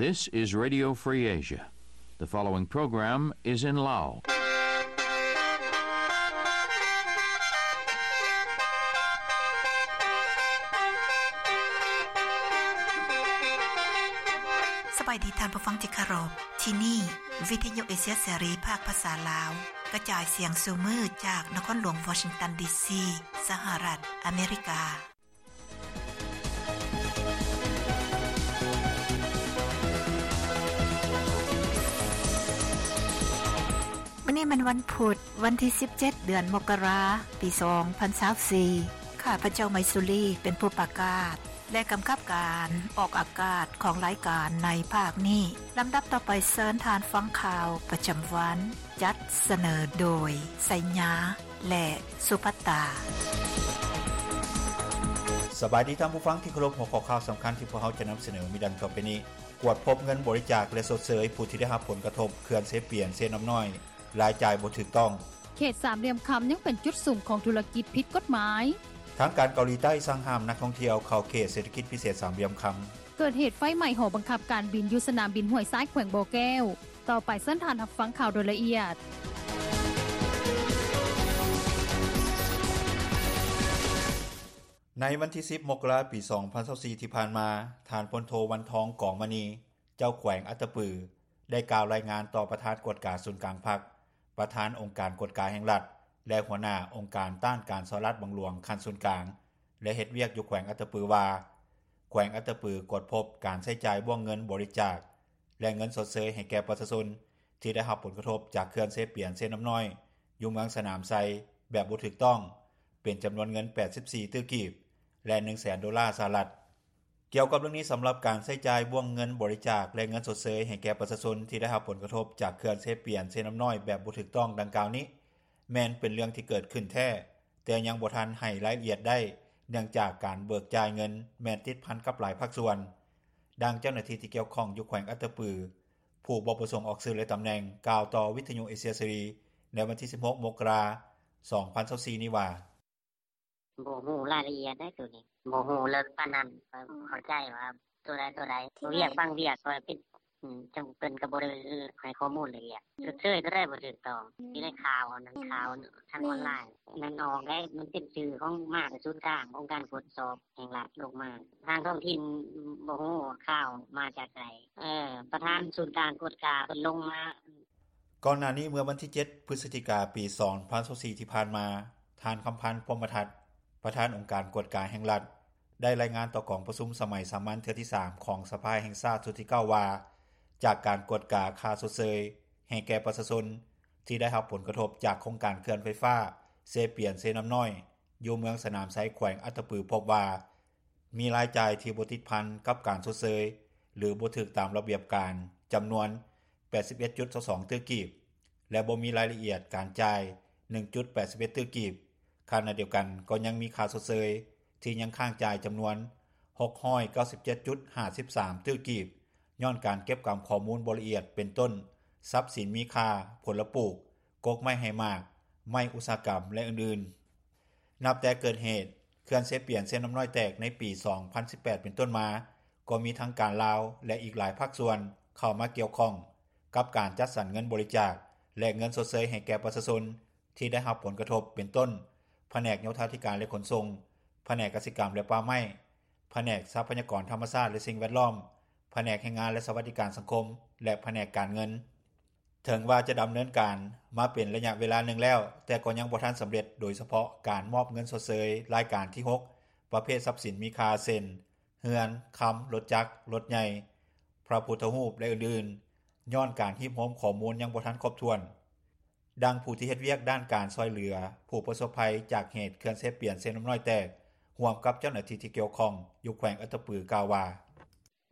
This is Radio Free Asia. The following program is in Lao. ສະບາຍດີທ່ານຜູ້ຟັງທີ່ເຄົາລົບ. ທີ່ນີ້ ວິທະຍຸເອເຊຍເສລີ ພາກພາສາລາວ ກະຈາຍສຽງສູ່ມື້ຈາກນະຄອນຫຼວງວໍຊິງຕັນ ດີຊີ ສະຫະລັດອາເມລິກາ. ມື້ນີ້ແມ່ນວັນພຸດ ວັນທີສິບເຈັດ ເດືອນມົກກະລາ ປີສອງພັນຊາວສີ່. ຂ້າພະເຈົ້າ ໄມຊູລີ ເປັນຜູ້ປະກາດ ແລະ ກຳກັບການອອກອາກາດຂອງລາຍການໃນພາກນີ້. ລຳດັບຕໍ່ໄປ ເຊີນທ່ານຟັງຂ່າວປະຈຳວັນ ຈັດສະເໜີໂດຍ ໄຊຍາ ແລະ ສຸພັດຕາ. ສະບາຍດີທ່ານຜູ້ຟັງທີ່ເຄົາລົບ, ຫົວຂໍ້ຂ່າວສຳຄັນທີ່ພວກເຮົາຈະນຳສະເໜີມີດັ່ງຕໍ່ໄປນີ້. ກວດພົບເງິນບໍລິຈາກ ແລະ ຊົດເຊີຍຜູ້ທີ່ໄດ້ຮັບຜົນກະທົບເຂື່ອນເຊປຽນ-ເຊນ້ຳນ້ອຍ, ລາຍຈ່າຍບໍ່ຖືກຕ້ອງ. ເຂດສາມຫຼ່ຽມຄຳຍັງເປັນຈຸດສຸມຂອງທຸລະກິດຜິດກົດໝາຍ. ທາງການເກົາຫຼີໃຕ້ສັ່ງຫ້າມນັກທ່ອງທ່ຽວເຂົ້າເຂດເສດຖະກິດພິເສດສາມຫຼ່ຽມຄຳ. ເກີດເຫດໄຟໄໝ້ຫໍບັງຄັບການບິນຢູ່ສະໜາມບິນຫ້ວຍຊາຍ ແຂວງບໍ່ແກ້ວ. ຕໍ່ໄປເຊີນທ່ານຮັບຟັງຂ່າວໂດຍລະອຽດ. ໃນວັນທີສິບ ມົກກະລາ ປີສອງພັນຊາວສີ່ ທີ່ຜ່ານມາ, ທ່ານ ພົນໂທ ວັນທອງ ກອງມະນີ ເຈົ້າແຂວງອັດຕະປື ໄດ້ກ່າວລາຍງານຕໍ່ປະທານກວດກາສູນກາງພັກ, ປະທານອົງການກວດກາແຫ່ງລັດ ແລະ ຫົວໜ້າອົງການຕ້ານການສໍ້ລາດບັງຫຼວງຂັ້ນສູນກາງ ແລະ ເຮັດວຽກຢູ່ແຂວງອັດຕະປືວ່າ ແຂວງອັດຕະປືກວດພົບການໃຊ້ຈ່າຍບ້ວງເງິນບໍລິຈາກ ແລະ ເງິນຊົດເຊີຍໃຫ້ແກ່ປະຊາຊົນທີ່ໄດ້ຮັບຜົນກະທົບຈາກເຂື່ອນເຊປຽນ-ເຊນ້ຳນ້ອຍ ຢູ່ເມືອງສະໜາມໄຊ ແບບບໍ່ຖືກຕ້ອງ ເປັນຈຳນວນເງິນ ແປດສິບສີ່ ຕື້ກີບ ແລະ ໜຶ່ງແສນໂດລາສະຫະລັດ. ກ່ຽວກັບເລື່ອງນີ້, ສຳລັບການໃຊ້ຈ່າຍບ້ວງເງິນບໍລິຈາກ ແລະ ເງິນຊົດເຊີຍໃຫ້ແກ່ປະຊາຊົນທີ່ໄດ້ຮັບຜົນກະທົບຈາກເຂື່ອນເຊປຽນ-ເຊນ້ຳນ້ອຍແບບບໍ່ຖືກຕ້ອງດັ່ງກ່າວນີ້ ແມ່ນເປັນເລື່ອງທີ່ເກີດຂຶ້ນແທ້, ແຕ່ຍັງບໍ່ທັນໃຫ້ລາຍລະອຽດໄດ້ ເນື່ອງຈາກການເບີກຈ່າຍເງິນແມ່ນຕິດພັນກັບຫຼາຍພາກສ່ວນ. ດັ່ງເຈົ້າໜ້າທີ່ທີ່ກ່ຽວຂ້ອງຢູ່ແຂວງອັດຕະປື ຜູ້ບໍ່ປະສົງອອກຊື່ ແລະ ຕຳແໜ່ງ ກ່າວຕໍ່ວິທະຍຸເອເຊຍເສລີ ໃນວັນທີສິບຫົກ ມົກກະລາ ສອງພັນຊາວສີ່ ນີ້ວ່າ: ບໍ່ຮູ້ລາຍລະອຽດໃດໂຕນີ້ ບໍ່ຮູ້ເລິກປານນັ້ນ. ຂ້ອຍເຂົ້າໃຈວ່າໂຕໃດໂຕໃດ ວຽກບາງວຽກ ຂ້ອຍເປັນ ອືມ ຈັ່ງເພິ່ນກໍບໍ່ໄດ້ໃຫ້ຂໍ້ມູນລະອຽດ. ຊົດເຊີຍໂຕໃດບໍ່ຖືກຕ້ອງ ຢູ່ໃນຂ່າວ ອັນນັ້ນ ຂ່າວທາງອອນລາຍ ມັນອອກໄດ້ ມັນເປັນຊື່ຂອງ ມາແຕ່ສູນກາງ ອົງການກວດສອບແຫ່ງລັດລົງມາ. ທາງທ້ອງຖິ່ນບໍ່ຮູ້ວ່າຂ່າວມາຈາກໃສ. ເອີ ປະທານສູນກາງກວດກາເພິ່ນລົງມາ. ກ່ອນໜ້ານີ້ ເມື່ອວັນທີເຈັດ ພຶສຈິກາ ປີສອງພັນຊາວສີ່ ທີ່ຜ່ານມາ, ທ່ານ ຄຳພັນ ພົມມະທັດ ປະທານອົງການກວດກາແຫ່ງລັດ ໄດ້ລາຍງານຕໍ່ກອງປະຊຸມສະໄໝສາມັນເທື່ອທີສາມ ຂອງສະພາແຫ່ງຊາດຊຸດທີເກົ້າ ວ່າ ຈາກການກວດກາຄ່າຊົດເຊີຍໃຫ້ແກ່ປະຊາຊົນທີ່ໄດ້ຮັບຜົນກະທົບຈາກໂຄງການເຂື່ອນໄຟຟ້າເຊປຽນ-ເຊນ້ຳນ້ອຍ ຢູ່ເມືອງສະໜາມໄຊ ແຂວງອັດຕະປື ພົບວ່າ ມີລາຍຈ່າຍທີ່ບໍ່ຕິດພັນກັບການຊົດເຊີຍ ຫຼື ບໍ່ຖືກຕາມລະບຽບການ ຈຳນວນ ແປດສິບເອັດຈຸດຊາວສອງ ຕື້ກີບ ແລະ ບໍ່ມີລາຍລະອຽດການຈ່າຍ ໜຶ່ງຈຸດແປດສິບເອັດ ຕື້ກີບ. ຂະນະດຽວກັນກໍຍັງມີຄ່າຊົດເຊີຍທີ່ຍັງຄ້າງຈ່າຍ ຈຳນວນ ຫົກຮ້ອຍເກົ້າສິບເຈັດຈຸດຫ້າສິບສາມ ຕື້ກີບ ຍ້ອນການເກັບກຳຂໍ້ມູນບໍ່ລະອຽດ ເປັນຕົ້ນ ຊັບສິນມີຄ່າ, ຜົນລະປູກ, ກົກໄມ້ໃຫ້ໝາກ, ໄມ້ອຸດສາຫະກຳ ແລະ ອື່ນໆ. ນັບແຕ່ເກີດເຫດເຂື່ອນເຊປຽນ-ເຊນ້ຳນ້ອຍແຕກໃນປີສອງພັນສິບແປດເປັນຕົ້ນມາ, ກໍມີທັງການລາວ ແລະ ອີກຫຼາຍພາກສ່ວນເຂົ້າມາກ່ຽວຂ້ອງກັບການຈັດສັນເງິນບໍລິຈາກ ແລະ ເງິນຊົດເຊີຍໃຫ້ແກ່ປະຊາຊົນທີ່ໄດ້ຮັບຜົນກະທົບ ເປັນຕົ້ນ ພະແນກໂຍທາທິການ ແລະ ຂົນສົ່ງ, ພະແນກກະສິກຳ ແລະ ປ່າໄມ້, ພະແນກຊັບພະຍາກອນທຳມະຊາດ ແລະ ສິ່ງແວດລ້ອມ, ພະແນກແຮງງານ ແລະ ສະຫວັດດີການສັງຄົມ ແລະ ພະແນກການເງິນ. ເຖິງວ່າຈະດຳເນີນການມາເປັນໄລຍະເວລາໜຶ່ງແລ້ວ, ແຕ່ກໍຍັງບໍ່ທັນສຳເລັດ, ໂດຍສະເພາະການມອບເງິນຊົດເຊີຍລາຍການທີຫົກ ປະເພດຊັບສິນມີຄ່າ ເຊັ່ນ ເຮືອນ, ຄຳ, ລົດຈັກ, ລົດໃຫຍ່, ພະພຸດທະຮູບ ແລະ ອື່ນໆ, ຍ້ອນການຮີບໂຮມຂໍ້ມູນຍັງບໍ່ທັນຄົບຖ້ວນ. ດັ່ງຜູ້ທີ່ເຮັດວຽກດ້ານການຊ່ອຍເຫຼືອຜູ້ປະສົບໄພຈາກເຫດເຂື່ອນເຊປຽນ-ເຊນ້ຳນ້ອຍແຕກ ຮ່ວມກັບເຈົ້າໜ້າທີ່ທີ່ກ່ຽວຂ້ອງຢູ່ແຂວງອັດຕະປື ກ່າວວ່າ: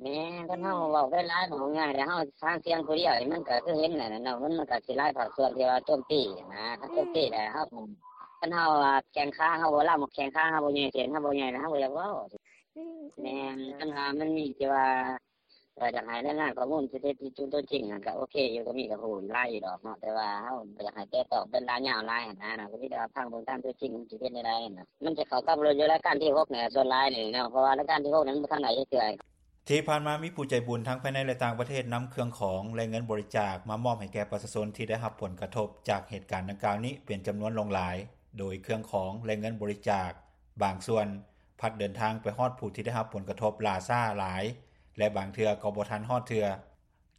ແມ່ນ ຄັນເຮົາເວົ້າໄປຫຼາຍ ເວົ້າງ່າຍແລ້ວ ເຮົາຫາສຽງຜູ້ດຽວນີ້ ມັນກໍຄືເຫັນນັ້ນແຫຼະເນາະ ມັນ ມັນກໍຊິຫຼາຍພາກສ່ວນທີ່ວ່າໂຈມຕີນະ ຄັນໂຈມຕີແລ້ວເຮົາ ຄັນເຮົາວ່າແຂ້ງຂາເຮົາບໍ່ລຳ ແຂ້ງຂາເຮົາບໍ່ໃຫຍ່ ແຂນເຮົາບໍ່ໃຫຍ່ ແລ້ວເຮົາບໍ່ຢາກເວົ້າ. ແມ່ນ ຄັນວ່າມັນມີທີ່ວ່າ ກໍຢາກໃຫ້ລາຍງານຂໍ້ມູນທີ່ແທ້ຈິງຕົວຈິງນັ້ນກໍໂອເຄຢູ່ ກໍມີກໍຮູ້ຫຼາຍຢູ່ດອກເນາະ ແຕ່ວ່າເຮົາບໍ່ຢາກໃຫ້ແຕະຕ້ອງເປັນລາຍຍາວຫຼາຍຫັ້ນນະ ກໍມີແຕ່ວ່າຟັງເບິ່ງຕາມຕົວຈິງມັນຊິເປັນແນວໃດຫັ້ນນະ ມັນຈະເຂົ້າກັບຢູ່ລາຍການທີຫົກນີ້ ສ່ວນຫຼາຍນີ້ເນາະ ເພາະວ່າລາຍການທີຫົກນີ້ມັນບໍ່ທັນໄດ້ເທື່ອ. ທີ່ຜ່ານມາມີຜູ້ໃຈບຸນທັງພາຍໃນ ແລະ ຕ່າງປະເທດ ນຳເຄື່ອງຂອງ ແລະ ເງິນບໍລິຈາກມາມອບໃຫ້ແກ່ປະຊາຊົນທີ່ໄດ້ຮັບຜົນກະທົບຈາກເຫດການດັ່ງກ່າວນີ້ເປັນຈຳນວນຫຼວງຫຼາຍ ໂດຍເຄື່ອງຂອງ ແລະ ເງິນບໍລິຈາກບາງສ່ວນພັດເດີນທາງໄປຮອດຜູ້ທີ່ໄດ້ຮັບຜົນກະທົບຫຼ້າຊ້າຫຼາຍ ແລະ ບາງເທື່ອກໍບໍ່ທັນຮອດເທື່ອ.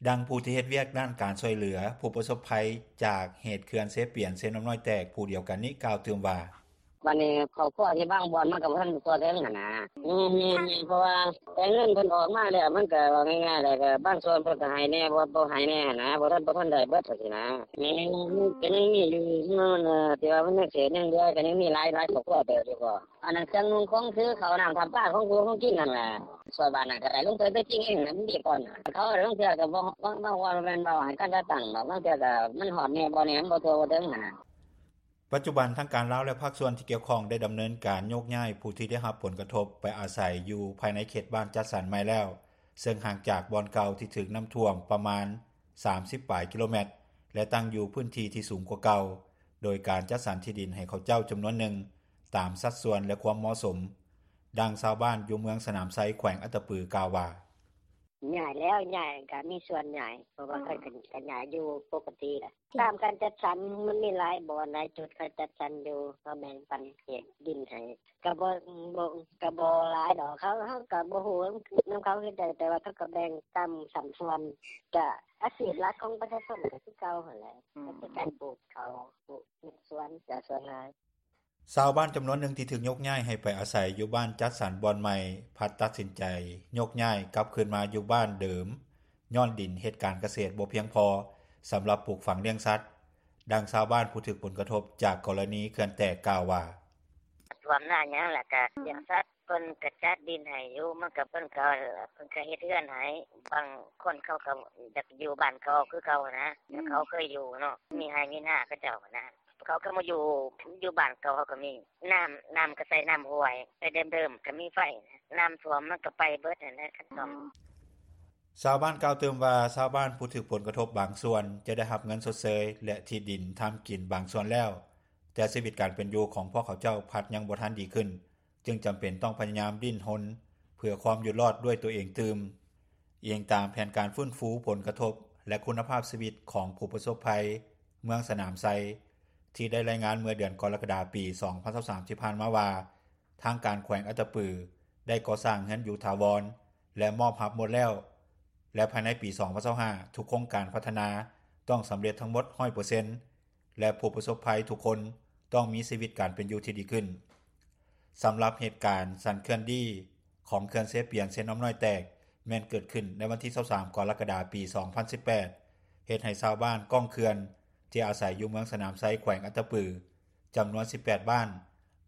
ດັ່ງຜູ້ທີ່ເຮັດວຽກດ້ານການຊ່ອຍເຫຼືອຜູ້ປະສົບໄພຈາກເຫດເຂື່ອນເຊປຽນ-ເຊນ້ຳນ້ອຍແຕກຜູ້ດຽວກັນນີ້ກ່າວຕື່ມວ່າ: ບາດນີ້ຄອບຄົວທີ່ບາງບ່ອນມັນກໍບໍ່ທັນທົ່ວເຖິງຫັ້ນນະ ແມ່ນໆ ເພາະວ່າແຕ່ເງິນເພິ່ນອອກມາແລ້ວ ມັນກໍເວົ້າງ່າຍໆ ແລ້ວກໍບາງສ່ວນເພິ່ນກໍໃຫ້ແດ່ ບໍ່ ບໍ່ໃຫ້ແດ່ຫັ້ນນະ ບໍ່ທັນ ບໍ່ທັນໄດ້ເບິດຈັ່ງຊີ້ນະ ແມ່ນ ມັນກໍຍັງມີຢູ່ ທີ່ວ່າມັນຍັງເສດຍັງເຫຼືອ ກໍຍັງມີຫຼາຍ ຫຼາຍຄອບຄົວເຕີບຢູ່ກໍ ອັນນັ້ນເຄື່ອງນຸ່ງຂອງຖື ເຂົ້ານ້ຳ ນ້ຳປາ ຂອງຢູ່ຂອງກິນຫັ້ນແຫຼະ ຊ່ວຍບ້ານນັ້ນກໍໄດ້ ລົງໄປ ໄປຈິງເອງນະ ມັນມີກ່ອນ ເຂົາລົງເທື່ອກໍບໍ່ ບາງ ບາງ ບາງ ບໍ່ແມ່ນເວົ້າໃຫ້ກັນຈັດຕັ້ງດອກ ບາງເທື່ອກໍມັນຮອດແດ່ບໍ່ແດ່ ມັນບໍ່ທົ່ວບໍ່ເຖິງຫັ້ນນະ. ປັດຈຸບັນທາງການລາວ ແລະ ພາກສ່ວນທີ່ກ່ຽວຂ້ອງໄດ້ດຳເນີນການໂຍກຍ້າຍຜູ້ທີ່ໄດ້ຮັບຜົນກະທົບໄປອາໄສຢູ່ພາຍໃນເຂດບ້ານຈັດສັນໃໝ່ແລ້ວ ເຊິ່ງຫ່າງຈາກບ່ອນເກົ່າທີ່ຖືກນ້ຳຖ້ວມປະມານສາມສິບປາຍກິໂລແມັດ ແລະ ຕັ້ງຢູ່ພື້ນທີ່ທີ່ສູງກວ່າເກົ່າ ໂດຍການຈັດສັນທີ່ດິນໃຫ້ເຂົາເຈົ້າຈຳນວນໜຶ່ງຕາມສັດສ່ວນ ແລະ ຄວາມເໝາະສົມ. ດັ່ງຊາວບ້ານຢູ່ເມືອງສະໜາມໄຊ ແຂວງອັດຕະປື ກ່າວວ່າ: ຍ້າຍແລ້ວ ຍ້າຍ ກໍມີສ່ວນຍ້າຍ ເພາະວ່າເພິ່ນກໍ ກໍຍ້າຍຢູ່ປົກກະຕິແຫຼະ ຕາມການຈັດສັນ ມັນມີຫຼາຍບ່ອນຫຼາຍຈຸດ ເຂົາຈັດສັນຢູ່ ເຂົາແບ່ງປັນເຂດດິນໃຫ້ ກໍບໍ່ ບໍ່ ກໍບໍ່ຫຼາຍດອກ ເຮົາ ເຮົາກໍບໍ່ຮູ້ນຳເຂົາຄືກັນ ແຕ່ວ່າເຂົາກໍແບ່ງຕາມສັດສ່ວນ ກໍອາຊີບຫຼັກຂອງປະຊາຊົນກໍຄືເກົ່າຫັ້ນແຫຼະ ກໍຄືການປູກເຂົ້າ ປູກເຮັດສວນ ກໍສ່ວນຫຼາຍ. ຊາວບ້ານຈຳນວນໜຶ່ງທີ່ຖືກໂຍກຍ້າຍໃຫ້ໄປອາໄສຢູ່ບ້ານຈັດສັນບ່ອນໃໝ່ ພັດຕັດສິນໃຈໂຍກຍ້າຍກັບຄືນມາຢູ່ບ້ານເດີມ ຍ້ອນດິນເຮັດການກະເສດບໍ່ພຽງພໍສຳລັບປູກຝັງລ້ຽງສັດ. ດັ່ງຊາວບ້ານຜູ້ຖືກຜົນກະທົບຈາກກໍລະນີເຂື່ອນແຕກກ່າວວ່າ: ຖ້ວມນາຫຍັງ ແລ້ວກໍລ້ຽງສັດ ເພິ່ນກໍຈັດດິນໃຫ້ຢູ່ ມັນກໍ ເພິ່ນກໍ ເພິ່ນກໍເຮັດເຮືອນໃຫ້ ບາງຄົນເຂົາກໍຢາກຢູ່ບ້ານເກົ່າຄືເກົ່ານະ ແລ້ວເຂົາເຄີຍຢູ່ເນາະ ມີໄຮ່ມີນາເຂົາເຈົ້ານະ ເຂົາກໍມາຢູ່ ຢູ່ບ້ານເກົ່າ ເຂົາກໍມີ ນ້ຳ ນ້ຳກໍໃສ່ນ້ຳຫ້ວຍ ແຕ່ເດີມໆກໍມີໄຟ ນ້ຳຖ້ວມມັນກໍໄປເບິດຫັ້ນແຫຼະ ຄັນຕ້ອງ. ຊາວບ້ານກ່າວຕື່ມວ່າ ຊາວບ້ານຜູ້ຖືກຜົນກະທົບບາງສ່ວນຈະໄດ້ຮັບເງິນຊົດເຊີຍ ແລະ ທີ່ດິນທຳກິນບາງສ່ວນແລ້ວ ແຕ່ຊີວິດການເປັນຢູ່ຂອງພວກເຂົາເຈົ້າພັດຍັງບໍ່ທັນດີຂຶ້ນ ຈຶ່ງຈຳເປັນຕ້ອງພະຍາຍາມດີ້ນຮົນເພື່ອຄວາມຢູ່ລອດດ້ວຍຕົວເອງຕື່ມ. ອີງຕາມແຜນການຟື້ນຟູຜົນກະທົບ ແລະ ຄຸນນະພາບຊີວິດຂອງຜູ້ປະສົບໄພເມືອງສະໜາມໄຊ ທີ່ໄດ້ລາຍງານເມື່ອເດືອນກໍລະກະດາ ປີສອງພັນຊາວສາມ ທີ່ຜ່ານມາວ່າ ທາງການແຂວງອັດຕະປືໄດ້ກໍ່ສ້າງເຮືອນຢູ່ຖາວອນ ແລະ ມອບຮັບໝົດແລ້ວ ແລະ ພາຍໃນປີສອງພັນຊາວຫ້າ ທຸກໂຄງການພັດທະນາຕ້ອງສຳເລັດທັງໝົດຮ້ອຍເປີເຊັນ ແລະ ຜູ້ປະສົບໄພທຸກຄົນຕ້ອງມີຊີວິດການເປັນຢູ່ທີ່ດີຂຶ້ນ. ສຳລັບເຫດການສັ່ນເຄື່ອນດີຂອງເຂື່ອນເຊປຽນ-ເຊນ້ຳນ້ອຍແຕກ ແມ່ນເກີດຂຶ້ນໃນວັນທີຊາວສາມ ກໍລະກະດາ ປີສອງພັນສິບແປດ ເຮັດໃຫ້ຊາວບ້ານກ້ອງເຂື່ອນທີ່ອາໄສຢູ່ເມືອງສະໜາມໄຊ ແຂວງອັດຕະປື ຈຳນວນສິບແປດບ້ານ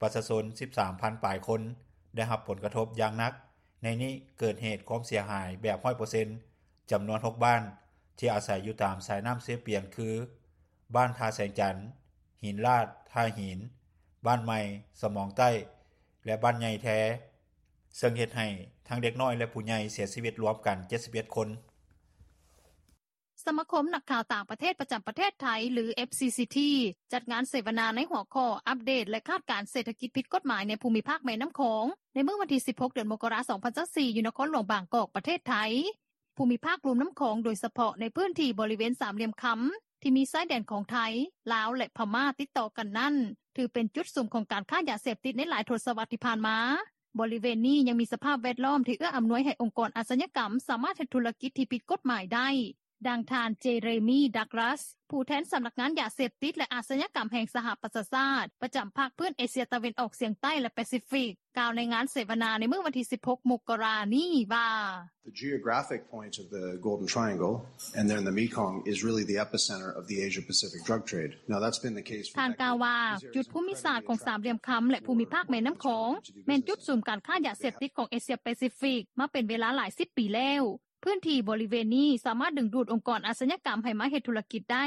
ປະຊາຊົນສິບສາມພັນປາຍຄົນ ໄດ້ຮັບຜົນກະທົບຢ່າງໜັກ. ໃນນີ້ເກີດເຫດຄວາມເສຍຫາຍແບບຮ້ອຍເປີເຊັນ ຈຳນວນຫົກບ້ານ ທີ່ອາໄສຢູ່ຕາມສາຍນ້ຳເຊປຽນ ຄື ບ້ານທ່າແສງຈັນ, ຫີນລາດ, ທ່າຫີນ, ບ້ານໃໝ່, ສະໝອງໃຕ້ ແລະ ບ້ານໃຫຍ່ແທ ເຊິ່ງເຮັດໃຫ້ທັງເດັກນ້ອຍ ແລະ ຜູ້ໃຫຍ່ເສຍຊີວິດລວມກັນເຈັດສິບເອັດຄົນ. ສະມາຄົມນັກຂ່າວຕ່າງປະເທດປະຈຳປະເທດໄທ ຫຼື FCCT ຈັດງານເສວະນາໃນຫົວຂໍ້ ອັບເດດ ແລະ ຄາດການເສດຖະກິດຜິດກົດໝາຍໃນພູມິພາກແມ່ນ້ຳຂອງ ໃນມື້ວັນທີສິບຫົກ ເດືອນມົກກະລາ ສອງພັນຊາວສີ່ ຢູ່ນະຄອນຫຼວງບາງກອກ ປະເທດໄທ. ພູມິພາກລຸ່ມນ້ຳຂອງ ໂດຍສະເພາະໃນພື້ນທີ່ບໍລິເວນສາມຫຼ່ຽມຄຳ ທີ່ມີຊາຍແດນຂອງໄທ, ລາວ ແລະ ພະມ້າຕິດຕໍ່ກັນນັ້ນ ຖືເປັນຈຸດສຸມຂອງການຄ້າຢາເສບຕິດໃນຫຼາຍທົດສະວັດທີ່ຜ່ານມາ. ບໍລິເວນນີ້ຍັງມີສະພາບແວດລ້ອມທີ່ເອື້ອອຳນວຍໃຫ້ອົງກອນອາຊະຍາກຳສາມາດເຮັດທຸລະກິດທີ່ຜິດກົດໝາຍໄດ້. ດັ່ງທ່ານ ເຈເຣມີ ດັກລັສ ຜູ້ແທນສຳນັກງານຢາເສບຕິດ ແລະ ອາຊະຍາກຳແຫ່ງສະຫະປະຊາຊາດ ປະຈຳພາກພື້ນເອເຊຍຕາເວັນອອກສຽງໃຕ້ ແລະ ປາຊີຟິກ ກ່າວໃນງານເສວະນາໃນມື້ວັນທີສິບຫົກ ມົກກະລານີ້ວ່າ: The geographic point of the Golden Triangle and then the Mekong is really the epicenter of the Asia-Pacific drug trade. Now that's been the case for decades. ທ່ານກ່າວວ່າ ຈຸດພູມິສາດຂອງສາມຫຼ່ຽມຄຳ ແລະ ພູມິພາກແມ່ນ້ຳຂອງ ແມ່ນຈຸດສຸມການຄ້າຢາເສບຕິດຂອງເອເຊຍປາຊີຟິກມາເປັນເວລາຫຼາຍສິບປີແລ້ວ. ພື້ນທີ່ບໍລິເວນນີ້ສາມາດດຶງດູດອົງກອນອາຊະຍາກຳໃຫ້ມາເຮັດທຸລະກິດໄດ້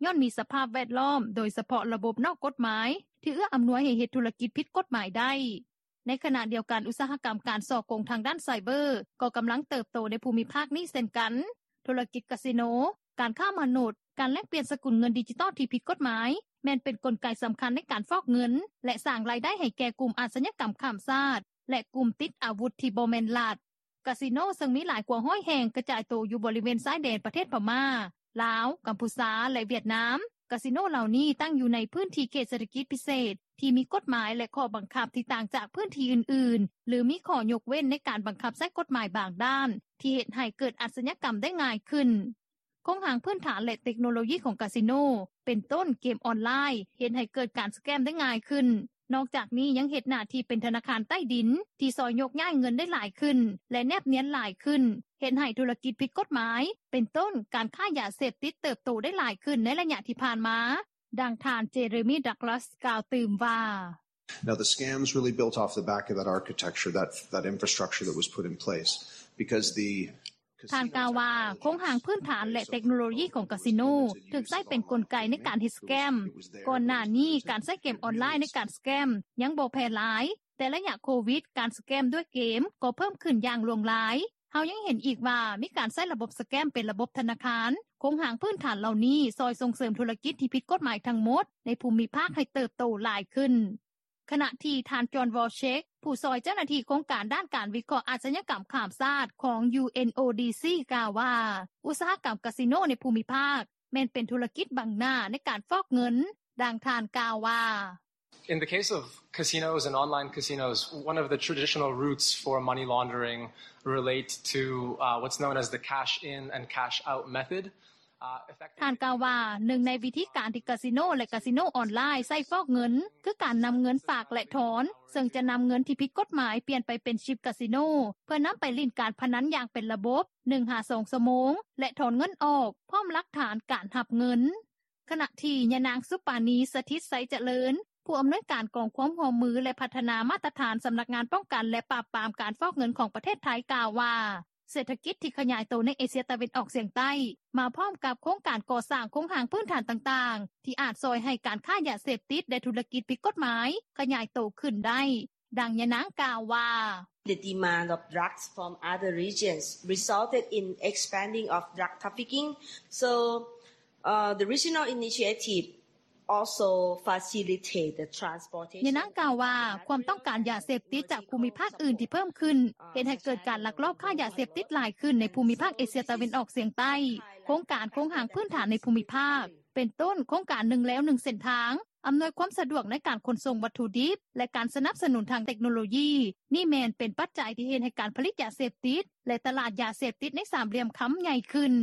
ຍ້ອນມີສະພາບແວດລ້ອມ ໂດຍສະເພາະລະບົບນອກກົດໝາຍ ທີ່ເອື້ອອຳນວຍໃຫ້ເຮັດທຸລະກິດຜິດກົດໝາຍໄດ້. ໃນຂະນະດຽວກັນ ອຸດສາຫະກຳການສໍ້ໂກງທາງດ້ານໄຊເບີ ກໍກຳລັງເຕີບໂຕໃນພູມິພາກນີ້ເຊັ່ນກັນ. ທຸລະກິດກາສິໂນ, ການຄ້າມະນຸດ, ການແລກປ່ຽນສະກຸນເງິນດິຈິຕອນທີ່ຜິດກົດໝາຍ ແມ່ນເປັນກົນໄກສຳຄັນໃນການຟອກເງິນ ແລະ ສ້າງລາຍໄດ້ໃຫ້ແກ່ກຸ່ມອາຊະຍາກຳຂ້າມຊາດ ແລະ ກຸ່ມຕິດອາວຸດທີ່ບໍ່ແມ່ນລັດ. ກາສິໂນເຊິ່ງມີຫຼາຍກວ່າຮ້ອຍແຫ່ງ ກະຈາຍໂຕຢູ່ບໍລິເວນຊາຍແດນປະເທດພະມ້າ, ລາວ, ກຳພູຊາ ແລະ ຫວຽດນາມ. ກາສິໂນເຫຼົ່ານີ້ຕັ້ງຢູ່ໃນພື້ນທີ່ເຂດເສດຖະກິດພິເສດ ທີ່ມີກົດໝາຍ ແລະ ຂໍ້ບັງຄັບທີ່ຕ່າງຈາກພື້ນທີ່ອື່ນໆ ຫຼື ມີຂໍ້ຍົກເວັ້ນໃນການບັງຄັບໃຊ້ກົດໝາຍບາງດ້ານ ທີ່ເຮັດໃຫ້ເກີດອາຊະຍາກຳໄດ້ງ່າຍຂຶ້ນ. ໂຄງຮ່າງພື້ນຖານ ແລະ ເຕັກໂນໂລຢີຂອງກາສິໂນ ເປັນຕົ້ນເກມອອນລາຍ ເຮັດໃຫ້ເກີດການສະແກມໄດ້ງ່າຍຂຶ້ນ. ນອກຈາກນີ້ຍັງເຮັດໜ້າທີ່ເປັນທະນາຄານໃຕ້ດິນ ທີ່ຊ່ອຍໂຍກຍ້າຍເງິນໄດ້ຫຼາຍຂຶ້ນ ແລະ ແນບນຽນຫຼາຍຂຶ້ນ, ເຮັດໃຫ້ທຸລະກິດຜິດກົດໝາຍ ເປັນຕົ້ນການຄ້າຢາເສບຕິດເຕີບໂຕໄດ້ຫຼາຍຂຶ້ນໃນໄລຍະທີ່ຜ່ານມາ. ດັ່ງທ່ານ Jeremy Douglas ກ່າວຕື່ມວ່າ. Now the scams really built off the back of that architecture, that that infrastructure that was put in place, because the ທ່ານກ່າວວ່າ ໂຄງຮ່າງພື້ນຖານ ແລະ ເຕັກໂນໂລຢີຂອງກາສິໂນ ຖືກໃຊ້ເປັນກົນໄກໃນການເຮັດສະແກມ. ກ່ອນໜ້ານີ້ ການໃຊ້ເກມອອນລາຍໃນການສະແກມຍັງບໍ່ແຜ່ຫຼາຍ, ແຕ່ໄລຍະໂຄວິດ ການສະແກມດ້ວຍເກມກໍເພີ່ມຂຶ້ນຢ່າງຫຼວງຫຼາຍ. ເຮົາຍັງເຫັນອີກວ່າ ມີການໃຊ້ລະບົບສະແກມເປັນລະບົບທະນາຄານ. ໂຄງຮ່າງພື້ນຖານເຫຼົ່ານີ້ຊ່ອຍສົ່ງເສີມທຸລະກິດທີ່ຜິດກົດໝາຍທັງໝົດໃນພູມິພາກໃຫ້ເຕີບໂຕຫຼາຍຂຶ້ນ. ຂະນະທີ່ທ່ານ John Walchek ຜູ້ຊ່ອຍເຈົ້າໜ້າທີ່ໂຄງການດ້ານການວິເຄາະອາຊະຍາກຳຂ້າມຊາດຂອງ UNODC ກ່າວວ່າ ອຸດສາຫະກຳກາສິໂນໃນພູມິພາກ ແມ່ນເປັນທຸລະກິດບັງໜ້າໃນການຟອກເງິນ. ດັ່ງທ່ານກ່າວວ່າ. In the case of casinos and online casinos, one of the traditional routes for money laundering relate to, uh, what's known as the cash in and cash out method. ທ່ານກ່າວວ່າ ໜຶ່ງໃນວິທີການທີ່ກາສິໂນ ແລະ ກາສິໂນອອນລາຍໃຊ້ຟອກເງິນ ຄືການນຳເງິນຝາກ ແລະ ຖອນ ເຊິ່ງຈະນຳເງິນທີ່ຜິດກົດໝາຍປ່ຽນໄປເປັນຊິບກາສິໂນ ເພື່ອນຳໄປຫຼິ້ນການພະນັນຢ່າງເປັນລະບົບ ໜຶ່ງຫາສອງຊົ່ວໂມງ ແລະ ຖອນເງິນອອກ ພ້ອມຫຼັກຖານການຮັບເງິນ. ຂະນະທີ່ຍານາງ ສຸປານີ ສະຖິດໄຊຈະເລີນ ຜູ້ອຳນວຍການກອງຄວາມຮ່ວມມື ແລະ ພັດທະນາມາດຕະຖານ ສຳນັກງານປ້ອງກັນ ແລະ ປາບປາມການຟອກເງິນຂອງປະເທດໄທ ກ່າວວ່າ ເສດຖະກິດທີ່ຂະຫຍາຍໂຕໃນເອເຊຍຕາເວັນອອກສຽງໃຕ້ ມາພ້ອມກັບໂຄງການກໍ່ສ້າງໂຄງຮ່າງພື້ນຖານຕ່າງໆ ທີ່ອາດຊ່ອຍໃຫ້ການຄ້າຢາເສບຕິດ ແລະ ທຸລະກິດຜິດກົດໝາຍຂະຫຍາຍໂຕຂຶ້ນໄດ້. ດັ່ງຍານາງກ່າວວ່າ. The demand of drugs from other regions resulted in expanding of drug trafficking. So, uh, the regional initiative also facilitate the transportation. ຍານາງກ່າວວ່າ ຄວາມຕ້ອງການຢາເສບຕິດຈາກພູມິພາກອື່ນທີ່ເພີ່ມຂຶ້ນ ເຮັດໃຫ້ເກີດການລັກລອບຄ້າຢາເສບຕິດຫຼາຍຂຶ້ນໃນພູມິພາກເອເຊຍຕາເວັນອອກສຽງໃຕ້. ໂຄງການໂຄງຮ່າງພື້ນຖານໃນພູມິພາກ ເປັນຕົ້ນໂຄງການໜຶ່ງແລວໜຶ່ງເສັ້ນທາງ ອຳນວຍຄວາມສະດວກໃນການຂົນສົ່ງວັດຖຸດິບ ແລະ ການສະໜັບສະໜູນທາງເຕັກໂນໂລຢີ ນີ້ແມ່ນເປັນປັດໄຈທີ່ເຮັດໃຫ້ການຜະລິດຢາເສບຕິດ ແລະ ຕະຫຼາດຢາເສບຕິດໃນສາມຫຼ່ຽມຄຳໃຫຍ່ຂຶ້ນ.